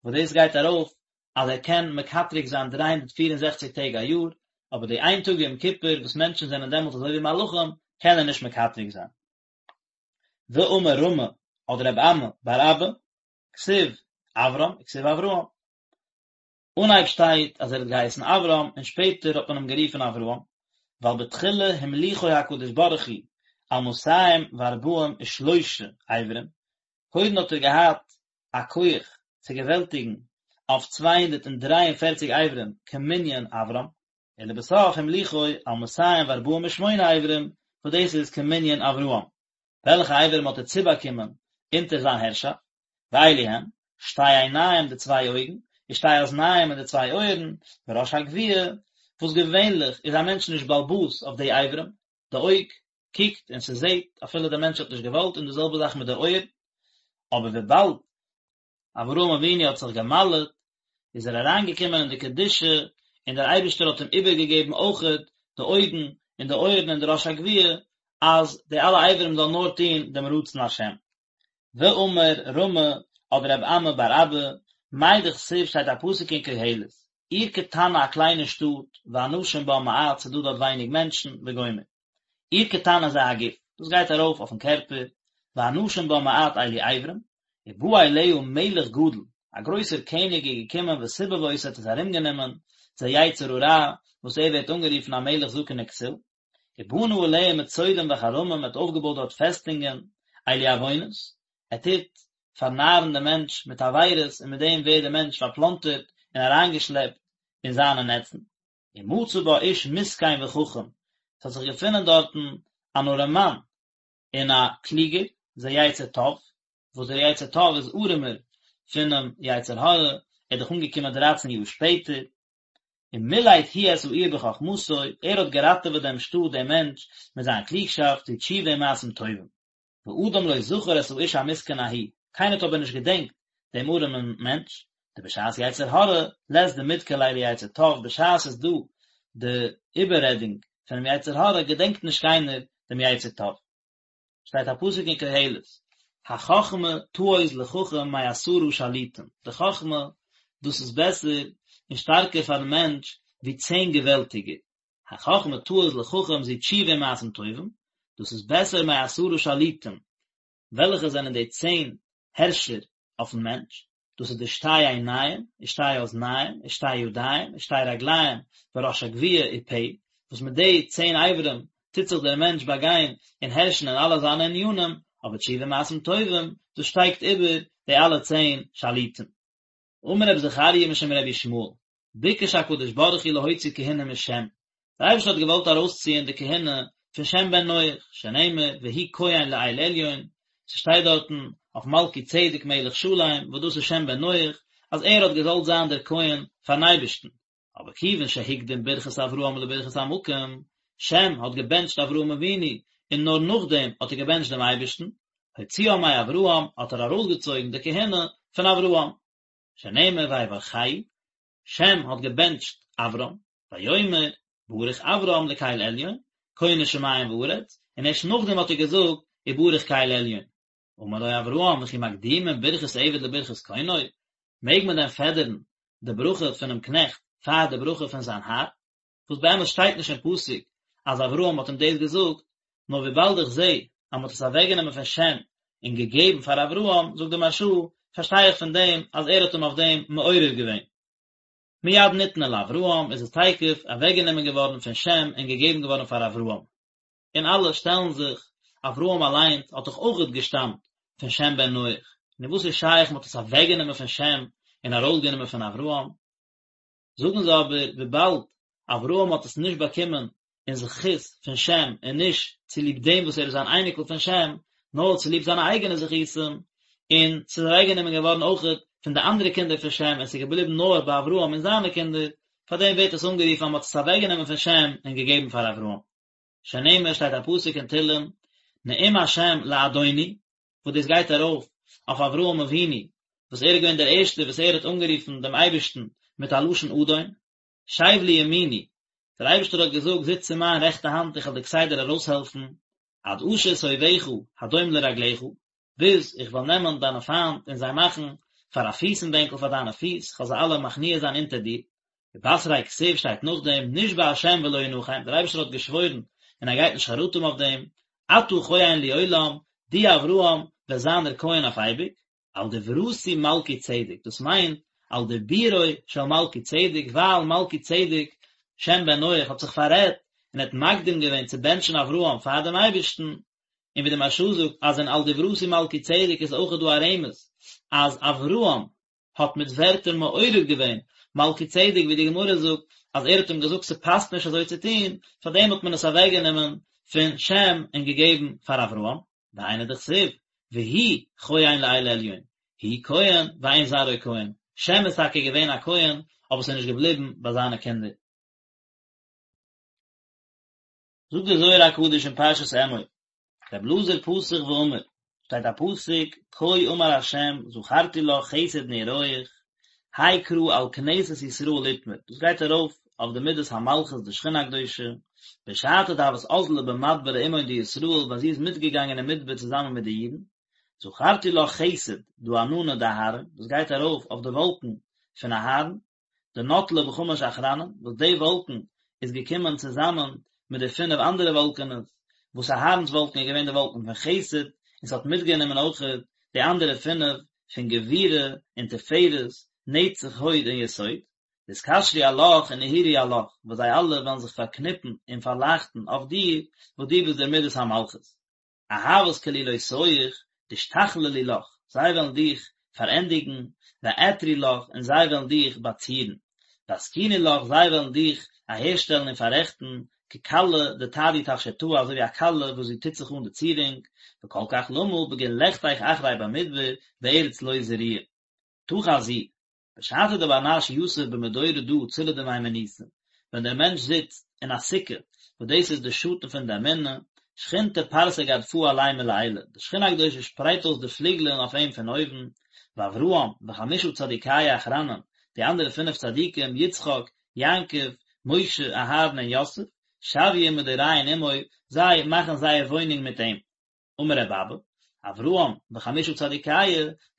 וואס דאס גייט ארויף אז ער קען מקטרג זיין 364 טעג א יאר, אבער די איין טאג יום כיפור וואס מענטשן זענען דעמאלט אזוי ווי מלאכים קען ער נישט מקטרג זיין. ואמר רמי אדער רב אמי בר אבא, כתיב אברם וכתיב אברהם. אנהייב שטייט אז ער האט געהייסן אברם און שפעטער האט מען אים גערופן אברהם, ווייל בתחילה המליכו הקדוש ברוך הוא על מאתים וארבעים ושלושה אברים, קודם האט ער געהאט א כח צו געוועלטיגן אויף 243 אברים כמנין אברם, ולבסוף המליכו על 248 אברים וואס דאס איז כמנין אברהם. וועלכע אברים האט ער צובאקומען אונטער זיין הערשאפט? ואלו הן, שתי עיניים די צוויי אויגן, ושתי אזניים און די צוויי אויערן, וראש הגויה, וואס געווענליך איז א מענטש נישט בעל הבית אויף די אברים, די אויג קוקט און ס'זעט אפילו דער מענטש האט נישט געוואלט, און די זעלבע זאך מיט די אויער, אבער וויבאלד אברהם אבינו האט זיך געמל'עט, איז ער אריינגעקומען אין די קדושה, און דער אייבערשטער האט אים איבערגעגעבן אויכעט די אויגן און די אויערן און די ראש הגויה, אז די אלע אברים זאלן נאר טון דעם רצון השם. ואמר רמי אדער רב אמי בר אבא, מאי דכתיב שטייט א פסוק אין קהלת, עיר קטנה א קליינע שטאט, ואנשים בה מעט ס'דא דארט ווייניג מענטשן, וגומר. עיר קטנה זה הגוף, דאס גייט ארויף אויפן קערפער, ואנשים בה מעט אלו אברים, ובא אליה מלך גדול, א גרויסער קעניג איז געקומען וסיבב אותה האט עס ארומגענומען, זה יצר הרע, וואס ער ווערט אנגערופן א מלך זקן וכסיל. ובנה עליה מצודים וחרמים, ער האט אויפגעבויט דארט פעסטונגען, אלו עוונות, ער טוט פארנארן דעם מענטש מיט עבירות און מיט דעם ווערט דער מענטש פארפלאנטערט און אריינגעשלעפט אין זיינע נעצן. ומצא בה איש מסכן וחכם, עס האט זיך געפונען דארטן אן ארעמאן און א קלוגער, זה יצר טוב, וואס דער יצר טוב איז ארעמער פונעם יצר הרע, ער איז דאך אנגעקומען דרייצן יאר שפעטער, ומילט הוא את העיר בחכמתו, ער האט געראטעוועט דעם שטאט, דעם מענטש, מיט זיין קלוגשאפט, זו תשובה ומעשים טובים. ואדם לא זכר את האיש המסכן ההוא, קיינער האט אבער נישט געדענקט דעם ארעמען מענטש, דבשעת יצר הרע, לית דמדכר ליה ליצר טוב, בשעת ס'איז דא די איבעררעדונג פונעם יצר הרע, געדענקט נישט קיינער דעם יצר טוב. שטייט א פסוק אין קהלת, החכמה תעוז לחכם מעשרה שליטים, די חכמה, דאס איז בעסער און שטארקער פארן מענטש ווי צען געוועלטיגער, החכמה תעוז לחכם זו תשובה ומעשים טובים, דאס איז בעסער מעשרה שליטים, וועלכע זענען די צען הערשער אויפן מענטש, דאס איז די שתי עיניים, ושתי אזניים, ושתי ידיים, ושתי רגליים, וראש הגויה ופה, וואס מיט די צען אברים טוט זיך דער מענטש באגיין און הערשן אין אלע זיינע ענינים, אבער תשובה ומעשים טובים, דאס שטייגט איבער די אלע צען שליטים. אמר רבי זכריה משום רבי ישמעאל, ביקש הקדוש ברוך הוא להוציא כהונה משם, דער אייבערשטער האט געוואלט ארויסציען די כהונה פון שם בן נח, שנאמר והוא כהן לאל עליון, ס'שטייט דארטן אויף מלכי צדק מלך שלם, וואס דאס איז שם בן נח, אז ער האט געזאלט זיין דער כהן פארן אייבערשטן, אבער כיוון שהקדים ברכת אברהם לברכת המקום, שם האט געבענטשט אברהם אבינו, און נאר נאכדעם האט ער געבענטשט דעם אייבערשטן, הוציאה מאברהם, האט ער ארויסגעצויגן די כהונה פון אברהם. שנאמר ויברכהו, שם האט געבענטשט אברם, ויאמר, ברוך אברם לקל עליון, קונה שמים וארץ, און ערשט נאכדעם האט ער געזאגט, וברוך קל עליון. אמר לו אברהם, וכי מקדימין ברכת עבד לברכת קונו, מעג מען דען פעדערן די ברכה פונעם קנעכט פאר די ברכה פון זיין האר? וואס באמת שטייט נישט אין פסוק אז אברהם האט אים דאס געזאגט, נאר וויבאלד איך זע אז מען האט עס אוועקגענומען פון שם און געגעבן פאר אברהם, זאגט די מהרש"א, פארשטיי איך פון דעם אז ער האט אים אויף דעם מעורר געווען. מיד ניתנה לאברהם איז עס תיכף אוועקגענומען געווארן פון שם און געגעבן געווארן פאר אברהם. און אלע שטעלן זיך, אברהם אליינס האט דאך אויכעט געשטאמט פון שם בן נח, נו וואס איז שייך מען האט עס אוועקגענומען פון שם און ארויסגענומען פון אברהם? זאגן זיי אבער וויבאלד אברהם האט עס נישט באקומען אין זכות פון שם און נישט צוליב דעם וואס ער איז אן אייניקל פון שם, נאר צוליב זיינע אייגענע זכותים, און ס'איז אוועקגענומען געווארן אויכעט פון די אנדערע קינדער פון שם און ס'איז געבליבן נאר ביי אברהם און זיינע קינדער, פארדעם ווערט עס אנגערופן אז מ'האט עס אוועקגענומען פון שם און געגעבן פאר אברהם. שנאמר שטייט א פסוק אין תהלים, נאום השם לאדוני, וואס דאס גייט ארויף אויף אברהם אבינו, וואס ער איז געווען דער ערשטער וואס ער האט אנגערופן דעם אייבערשטן מיט א לשון אדון, שב לימיני, דער אייבערשטער האט געזאגט, זיץ צו מיין רעכטע האנט, איך וועל דיר כסדר ארויסהעלפן, עד אשית אויביך הדום לרגליך, ביז איך וועל נעמען דיינע פיינט און זיי מאכן פאר א פיסן בענקל פאר דיינע פיס, איך וועל זיי אלע מכניע זיין אונטער דיר. ובתריה כתיב שטייט נאכדעם, נשבע השם ולא ינחם, דער אייבערשטער האט געשוואוירן און ער גייט נישט חרטה האבן אויף דעם, אתה כהן לעולם, דו אברהם וועסט זיין דער כהן אויף אייביג, על דברתי מלכי צדק, דאס מיינט על דיבורו של מלכי צדק, ווייל מלכי צדק, שם בן נח, האט זיך פאררעדט און האט מקדים געווען צו בענטשן אברהם פאר דעם אייבערשטן, און ווי די מהרש"א זאגט אז אין על דברתי מלכי צדק איז אויכעט דא א רמז אז אברהם האט מיט ווערטער מעורר געווען מלכי צדק ווי די גמרא זאגט אז ער האט אים געזאגט ס'פאסט נישט אזוי צו טון, פארדעם האט מען עס אוועקגענומען פון שם און געגעבן פאר אברהם, והיינו דכתיב והוא כהן לאל עליון, הוא כהן ואין זרעו כהן, שם איז טאקע געווען א כהן אבער ס'איז נישט געבליבן ביי זיינע קינדער. זאגט דער זוהר הקדוש אין פרשת אמור, רבי אלעזר פתח ואמר, שטייט א פסוק, כה אמר ה' זכרתי לך חסד נעוריך, האי קרא על כנסת ישראל אתמר, דאס גייט ארויף אויף די מידת המלכות די שכינה הקדושה, בשעתא דהוות אזלא במדברא עמהון דישראל ווען זי איז מיטגעגאנגען אין מדבר צוזאמען מיט די אידן, זכרתי לך חסד דא עננא דאהרן, דאס גייט ארויף אויף די וואלקן פון אהרן, דנטלא בחמש אחרנין, וואס די וואלקן איז געקומען צוזאמען מיט די פינף אנדערע וואלקענעס, וואס אהרן'ס וואלקן איז געווען די וואלקן פון חסד, און ס'האט מיטגענומען אויכעט די אנדערע פינף פון גבורה און תפארת, נצח הוד און יסוד. דאתקשרו עלך ונהירו עלך, וואס זיי אלע וועלן זיך פארקניפן און פארלייכטן אויף דיר, וואס דו ביסט דער מידת המלכות. אהבת כלולותיך דאשתכללו לך, זיי וועלן דיך פארענדיגן, ואעתרו לך, און זיי וועלן דיך באצירן. ואתקינו לך, זיי וועלן דיך אהערשטעלן און פאררעכטן, ככלה דתדי תפשיטאה, אזוי ווי א כלה וואס זי טוט זיך אן די צירונג, וכל כך למה בגין לכתך אחרי במדבר בארץ לא זרועה. תא חזי, בשעתא דבר נש יתיב במדורא דא צלא דמהימנותא, ווען דער מענטש זיצט אין א סוכה, וואס דאס איז די שאטן פון די אמונה, שכינתא פרסא גדפהא עליה מלעילא, די שכינה הקדושה שפרייט אויס די פליגלען אויף אים פון אויבן, ואברהם, וחמשה צדיקיא אחרנין, די אנדערע פינף צדיקים, יצחק, יעקב, משה, אהרן און יוסף, שויין מדוריהון עמוי, זיי מאכן זייער וואוינונג מיט אים. אמר רבי אבא, אברהם וחמשה צדיקיא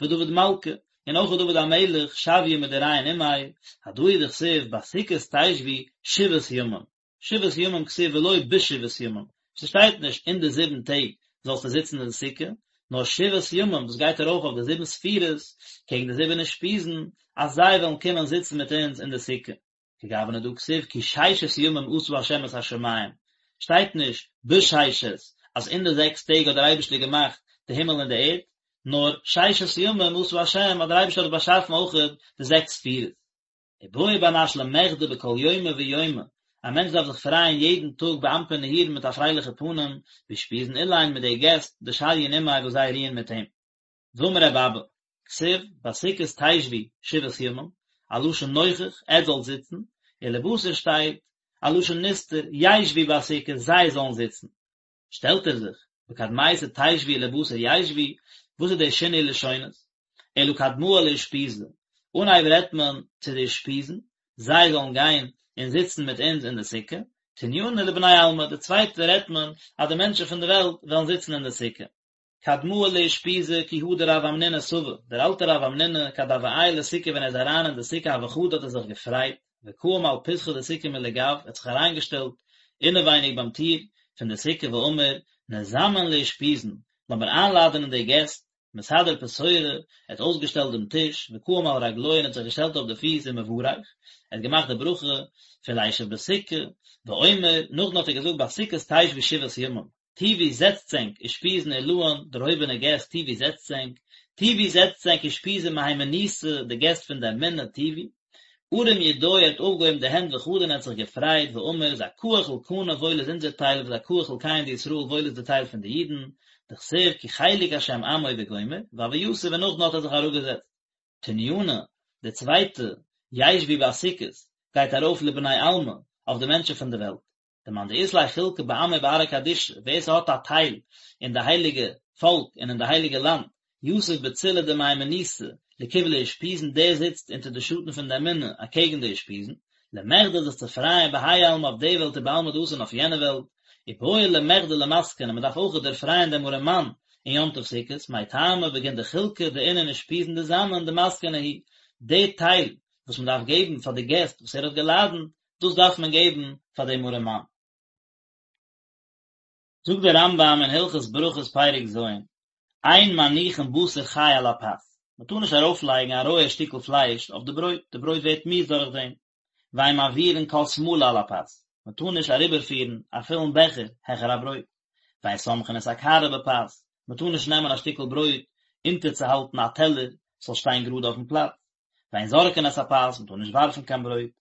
ודוד מלכא, און אויך דוד המלך שויין מדוריהון עמיה, הדא הוא דכתיב בסוכות תשבו שבעת ימים, שבעת ימים כתיב ולא בשבעת ימים, ס'שטייט נישט אין די זיבן טעג זאלסטו זיצן אין די סוכה, נאר שבעת ימים דאס גייט ארויף אויף די זיבן ספירות קעגן די זיבן אושפיזין אז זיי וועלן קומען זיצן מיט אונז אין די סוכה. כגוונא דהא כתיב כי ששת ימים עשה ה' את השמים, שטייט נישט בששת אז אין די זעקס טעג האט דער אייבערשטער געמאכט די הימל און די ערד, נאר ששת ימים עשה ה' אז דער אייבערשטער האט באשאפן אויכעט די זעקס ספירות. ובעי בר נש למחדי בכל יומא ויומא, א מענטש דארף זיך פרייען יעדן טאג באנפין נהירין מיט א פרייליכע פנים, באושפיזין אלין מיט די געסט, דשריין עמיה וואס זיי רוען מיט אים. ואמר רבי אבא, כתיב, בסוכות תשבו שבעת ימים, א לשון נוכח, עטס זאלט זיצן, ולבתר שטייט, א לשון נסתר, ישבו בסוכות, זיי זאלן זיצן. שטעלט ער זיך, בקדמיתא תשבו ולבתר ישבו, וואס איז דער שינוי לשונות? אלא קדמאה לאושפיזי, אנהייב רעדט מען צו די אושפיזין, זיי זאלן גיין און זיצן מיט אונז אין די סוכה, תניינא לבני עלמא, די צווייטע רעדט מען אז די מענטשן פון די וועלט וועלן זיצן אין די סוכה. קדמאה לאושפיזי כי הא דרב המנונא סבא, דער אלטער רב המנונא כד הוה עייל לסוכה ווען ער איז אריין אין די סוכה הוה חדי האט ער זיך געפרייט, וקאים על פתחא דסוכה מלגיו, ער האט זיך אריינגעשטעלט אינעווייניג ביים טיר פון די סוכה ואמר, נזמן לאושפיזין, לאמיר איינלאדענען די געסט, מסדר פתורא, ער האט אויסגעשטעלט דעם טיש, וקאים על רגלוי און האט זיך געשטעלט אויף די פיס ומברך, ער האט געמאכט די ברכה פון לישב בסוכה, ואומר, נאכדעם האט ער געזאגט בסוכות תשבו שבעת ימים, תיבו זעצטס ענק, אושפיזין עילאין, דערהויבענע געסט, תיבו זעצטס ענק, תיבו זעצטס ענק אושפיזין מהימנותא, די געסט פון די אמונה, תיבו. ארים ידוי ער האט אויפגעהויבן די הענט וחדי און ער האט זיך געפרייט, ואמר, זכאה חולקנא וואויל איז אונזער טייל וזכאה חולקיהון דישראל וואויל איז די טייל פון די אידן, דכתיב כי חלק השם עמו וגומר, והוה יתיב און נאכדעם האט ער זיך אראפגעזעצט. תניינא, די צווייטע, ישבו בסוכות, גייט ארויף לבני עלמא, אויף די מענטשן פון די וועלט. דמאן דאית ליה חולקא בעמא ובארעא קדישא, ווער ס'האט א טייל אין די הייליגע פאלק און אין די הייליגע לאנד, יתיב בצילא דמהימנותא לקבלא אושפיזין דער זיצט אונטער די שאטן פון די אמונה אקעגן די אושפיזין, למחדי זיך צו פרייען בהאי עלמא אויף די וועלט ובעלמא דאתי און אויף יענע וועלט, ובעי למחדי למסכן און מ'דארף אויך דערפרייען דעם ארעמאן אין יום טוב סוכות, מאי טעמא בגין דחולקא דאינון אושפיזין דזמין דמסכנא הוא, די טייל וואס מ'דארף געבן פאר די געסט וואס ער האט געלאדענט, דאס דארף מען געבן פאר דעם ארעמאן. זאגט דער רמב"ם אין הלכות ברכות פרק ז', אין מניחין בשר חי על הפת, מען טאר נישט ארויפלייגן א רויע שטיקל פלייש אויף די ברויט, די ברויט ווערט מיאוס דורך דעם, ואין מעבירין כוס מלא על הפת, מען טאר נישט אריבערפירן א פולן בעכער העכער א ברויט, ואין סומכין את הקערה בפת, מען טאר נישט נעמען א שטיקל ברויט אונטערצוהאלטן א טעלער ס'זאל שטיין גראד אויפן פלאץ, ואין זורקין את הפת, מען טאר נישט ווארפן קיין ברויט.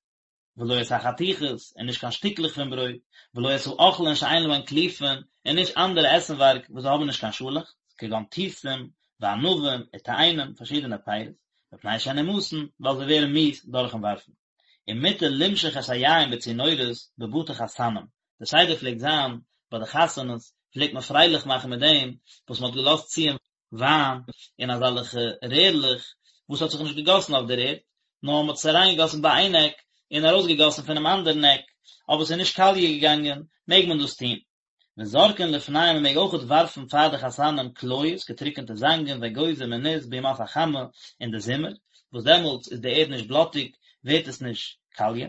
ולא את החתיכות, און נישט קיין שטיקלעך פון ברויט, ולא את האוכלין שאין להן קליפין, און נישט אנדערע עסנווארג וואס זיי האבן נישט קיין שאלעכץ, כגון תותים, וענבים, ותאנים, פארשידענע פירות, מפני שהן נמאסין, ווייל זיי ווערן מיאוס דורכן ווארפן. ומותר למשוך את היין בצינורות בבתי חתנים, די סדר פלעגט זיין, ביי די חתונות, פלעגט מען פרייליך מאכן מיט דעם וואס מען האט געלאזט ציען וויין אין אזעלכע רערלעך וואס האט זיך נישט געגאסן אויף דער ערד, נאר מען האט עס אריינגעגאסן ביי איין עק און ארויסגעגאסן פונעם אנדערן עק, אבער עס איז נישט קאליע געגאנגען, מעג מען דאס טון. וזורקין לפניהם מען מעג אויכעט ווארפן פאר די חתנים קליות, געטריקענטע זאנגען, ואגוזים און ניס בימות החמה אין די זומער, וואס דעמאלטס איז די ערד נישט בלאטיג, ווערט עס נישט קאליע,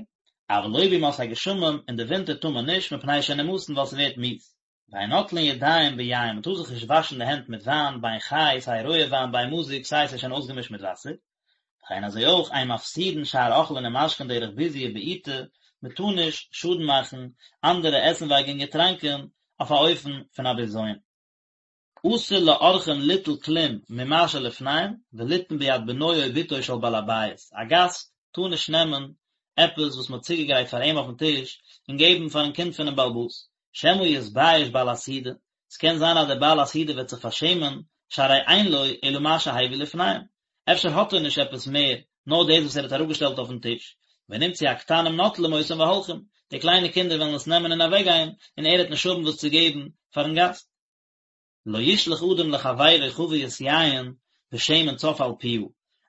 אבל לא בימות הגשמים, אין די ווינטער טאר מען נישט, מפני שהן נמאסין ווייל ס'ווערט מיאוס. ואין נוטלין ידיים ביין, מען טאר זיך נישט וואשן די הענט מיט וויין, בין חי, סיי רויע וויין, בין מזוג, סיי עס איז שוין אויסגעמישט מיט וואסער. וכן אזוי אויך אין מפסידין שאר אוכלין ומשקין דרך ביזוי ובעיטה, מען טאר נישט שאדן מאכן אנדערע עסנווארג און געטראנקען אויף א אופן פון א בזיון. אסור לאורחים ליטול כלום ממה שלפניהם וליתן ביד בנו או בתו של בעל הבית, א גאסט טאר נישט נעמען עפעס וואס מען האט צוגעגרייט פאר אים אויפן טיש און געבן פארן קינד פונעם בעל הבית, שמא יתבייש בעל הסעודה, ס'קען זיין אז דער בעל הסעודה וועט זיך פארשעמען, שהרי אין לו אלא מה שהביא לפניהם, אפשר האט ער נישט עפעס מער, נאר דאס וואס ער האט אראפגעשטעלט אויפן טיש, ונמצאו הקטנים נוטלים אותם והולכים, די קליינע קינדער וועלן עס נעמען און אוועקגיין, און ער וועט נישט האבן וואס צו געבן פארן גאסט. לא ישלח אדם לחבירו חבית יין ושמן צף על פיה,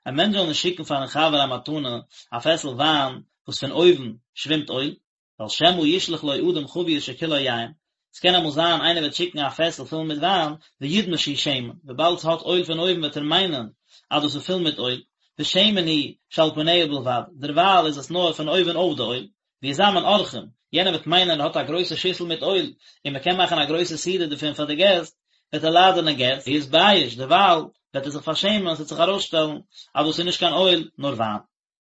א מענטש זאל נישט שיקן פארן חבר א מתנה א פעסל וויין וואס פון אויבן שווימט אויל, ווייל שמא ישלח לו אדם חבית שכולה יין, ס'קען אמאל זיין איינער וועט שיקן א פעסל פול מיט וויין, וידמה שהוא שמן, וויבאלד ס'האט אויל פון אויבן וועט ער מיינען אז דאס איז פול מיט אויל, ושמן הוא שעל פניה בלבד, דערווייל איז עס נאר פון אויבן אויף די אויל, ויזמן אורחים, יענער וועט מיינען ער האט א גרויסע שיסל מיט אויל, און מ'קען מאכן א גרויסע סעודה דערפון פאר די געסט, וועט ער לאדענען געסט, ויתבייש, דערווייל וועט ער זיך פארשעמען, ס'וועט זיך ארויסשטעלן אז דאס איז נישט קיין אויל, נאר וויין.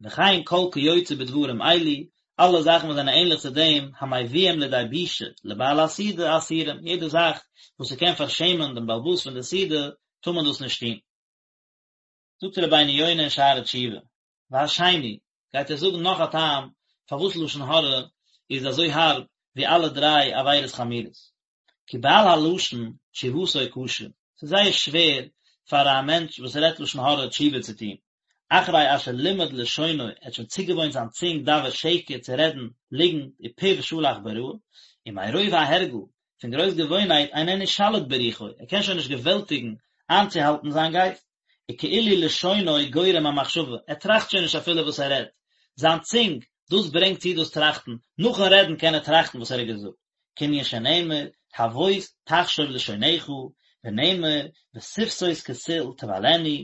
וכן כל כיוצא בדברים אלו, אלע זאכן וואס זענען ענליך צו דעם, המביאים לידי בושה לבעל הסעודה אסורים, יעדע זאך וואס ס'קען פארשעמען דעם בעל הבית פון די סעודה, טאר מען דאס נישט טון. זאגט רבינו יונה אין שערי תשובה, והשני, גייט ער זאגן נאך א טעם פארוואס לשון הרע איז אזוי הארב ווי אלע דריי עבירות חמורות, כי בעל הלשון תשובתו קשה, ס'איז זייער שווער פאר א מענטש וואס רעדט לשון הרע תשובה צו טון, אחרי אשר לימד לשונו, ער האט שוין צוגעוואוינט זיין צונג דבר שקר צו רעדן ליגנט ופיו שלח ברעה, ומרוב ההרגל, פון גרויס געוואוינהייט איננו שליט ברוחו, ער קען שוין נישט געוועלטיגן איינצוהאלטן זיין גייסט, וכאילו לשונו גורם המחשבה, ער טראכט שוין נישט אפילו וואס ער רעדט, זיין צונג, דאס ברענגט צו דאס טראכטן, נאכן רעדן קען ער טראכטן וואס ער האט געזאגט. כענין שנאמר, הבוס תחשוב לשונך, ונאמר, ושפתות כסיל תבלענה,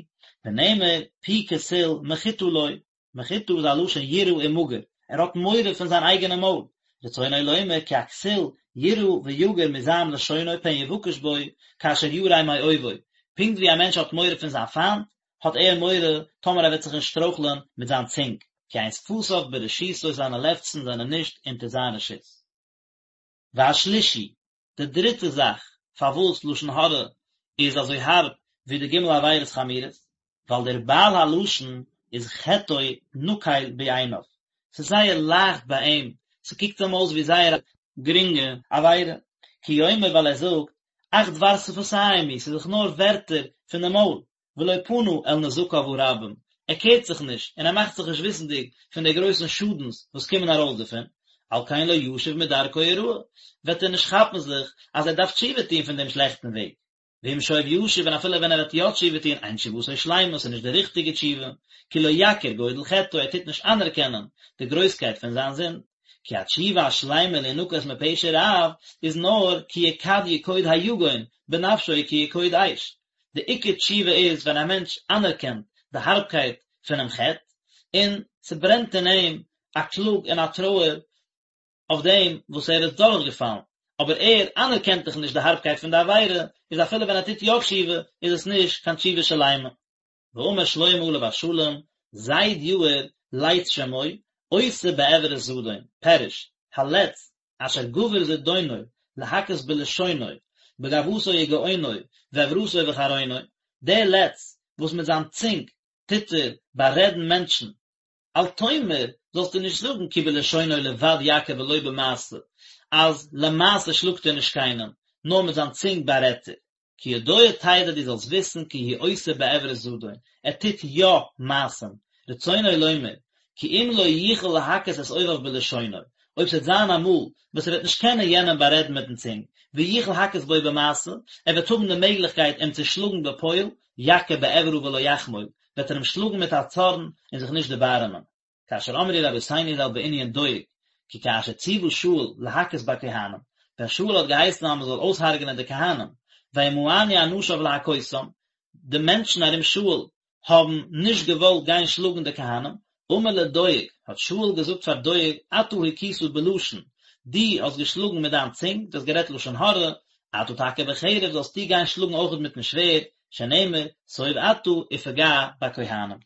ונאמר, פי כסיל מחתה לו, מחתה איז א לשון יראה ומגור, ער האט מורא פון זיין אייגענע מויל, רצונו לומר כי הכסיל יירא ויגור מזעם לשונו פן יבקש בו כאשר ירא מאויבו, פונקט ווי א מענטש האט מורא פון זיין פיינט, האט ער מורא טאמער ער וועט זיך אנשטרויכלען מיט זיין צונג, כי אין שפתיו ברשותו זיינע לעפצן זענען נישט אונטער זיין רשות. והשלישי, די דריטע זאך פארוואס לשון הרע איז אזוי הארב ווי די ג' עבירות חמורות, ווייל דער בעל הלשון איז חטאו נקל בעיניו, ס'איז זייער לייכט ביי אים, ס'קוקט אים אויס ווי זייער א גרינגע עבירה, כי יאמר ווייל ער זאגט, אך דבר שפתיים הוא, ס'איז דאך נאר ווערטער פון די מויל, ולא פנה אל נזקיו הרבים, ער קערט זיך נישט און ער מאכט זיך נישט וויסנדיג פון די גרויסן שאדנס וואס קומען ארויס דערפון, על כן לא ישוב מדרכו הרעה, וועט ער נישט כאפן זיך אז ער דארף תשובה טון פון דעם שלעכטן וועג. ואם שוב ישוב און אפילו ווען ער וועט יא תשובה טון, אין תשובתו שלימה, ס'איז נישט די ריכטיגע תשובה, כי לא יכיר גודל חטאו, ער טוט נישט אנערקענען די גרויסקייט פון זיין זינד, כי התשובה השלימה להנקות מפשע רב איז נאר כי יקד יקוד היגון בנפשו כיקוד אש, די עיקר תשובה איז ווען א מענטש אנערקענט די הארבקייט פונעם חטא, און ס'ברענט אין אים א קלאג און א טרויער אויף דעם וואס ער איז דורכגעפאלן, אבער ער אנערקענט דאך נישט די הארבקייט פון די עבירה, איז אפילו ווען ער טוט יא תשובה איז עס נישט קיין תשובה שלימה. ואמר שלמה עליו השלום, זיד יאיר לץ שמו, עושה בעברת זדון, פירוש, הלץ אשר גבר זדונו להכות בלשונו, בגאוותו וגאונו, ועברתו וחרונו, דער לץ וואס מיט זיין צונג טוט ער בארעדן מענטשן, אל תאמר, זאלסטו נישט זאגן כי בלשונו לבד יכה ולא במעשה, אז למעשה שלאגט ער נישט קיינעם, נאר מיט זיין צונג בארעדט ער. כי ידוע תדע דו זאלסט וויסן כי הוא עושה בעברת זדון, ער טוט יא מעשים, רצונו לומר, כי אם לא יוכל להכות את אויביו בלשונו, אויב ס'וועט זיין אמאל וואס ער וועט נישט קענען יענעם בארעדן מיטן צונג, ויוכל הכות בו במעשה, ער וועט האבן די מעגליכקייט אים צו שלאגן בפועל, יכה בעברה ולא יחמול, וועט ער אים שלאגן מיט א צארן און זיך נישט דערבארעמען. כאשר אמרו רבותינו ז"ל בענין דואג, כי כאשר ציוה שאול להכות בכהנים, ווען שאול האט געהייסן אז מען זאל אויסהרג'נען די כהנים, וימאנו אנשיו להכותם, די מענטשן ארום שאול האבן נישט געוואלט גיין שלאגן די כהנים, אמר לדואג, האט שאול געזאגט פאר דואג, אתה הכית בלשון, דו האסט געשלאגן מיט דיין צונג, דו האסט גערעדט לשון הרע, אתה תכה בחרב, זאלסטו גיין שלאגן אויכעט מיטן שווערד, שנאמר, סוב אתה ופגע בכהנים.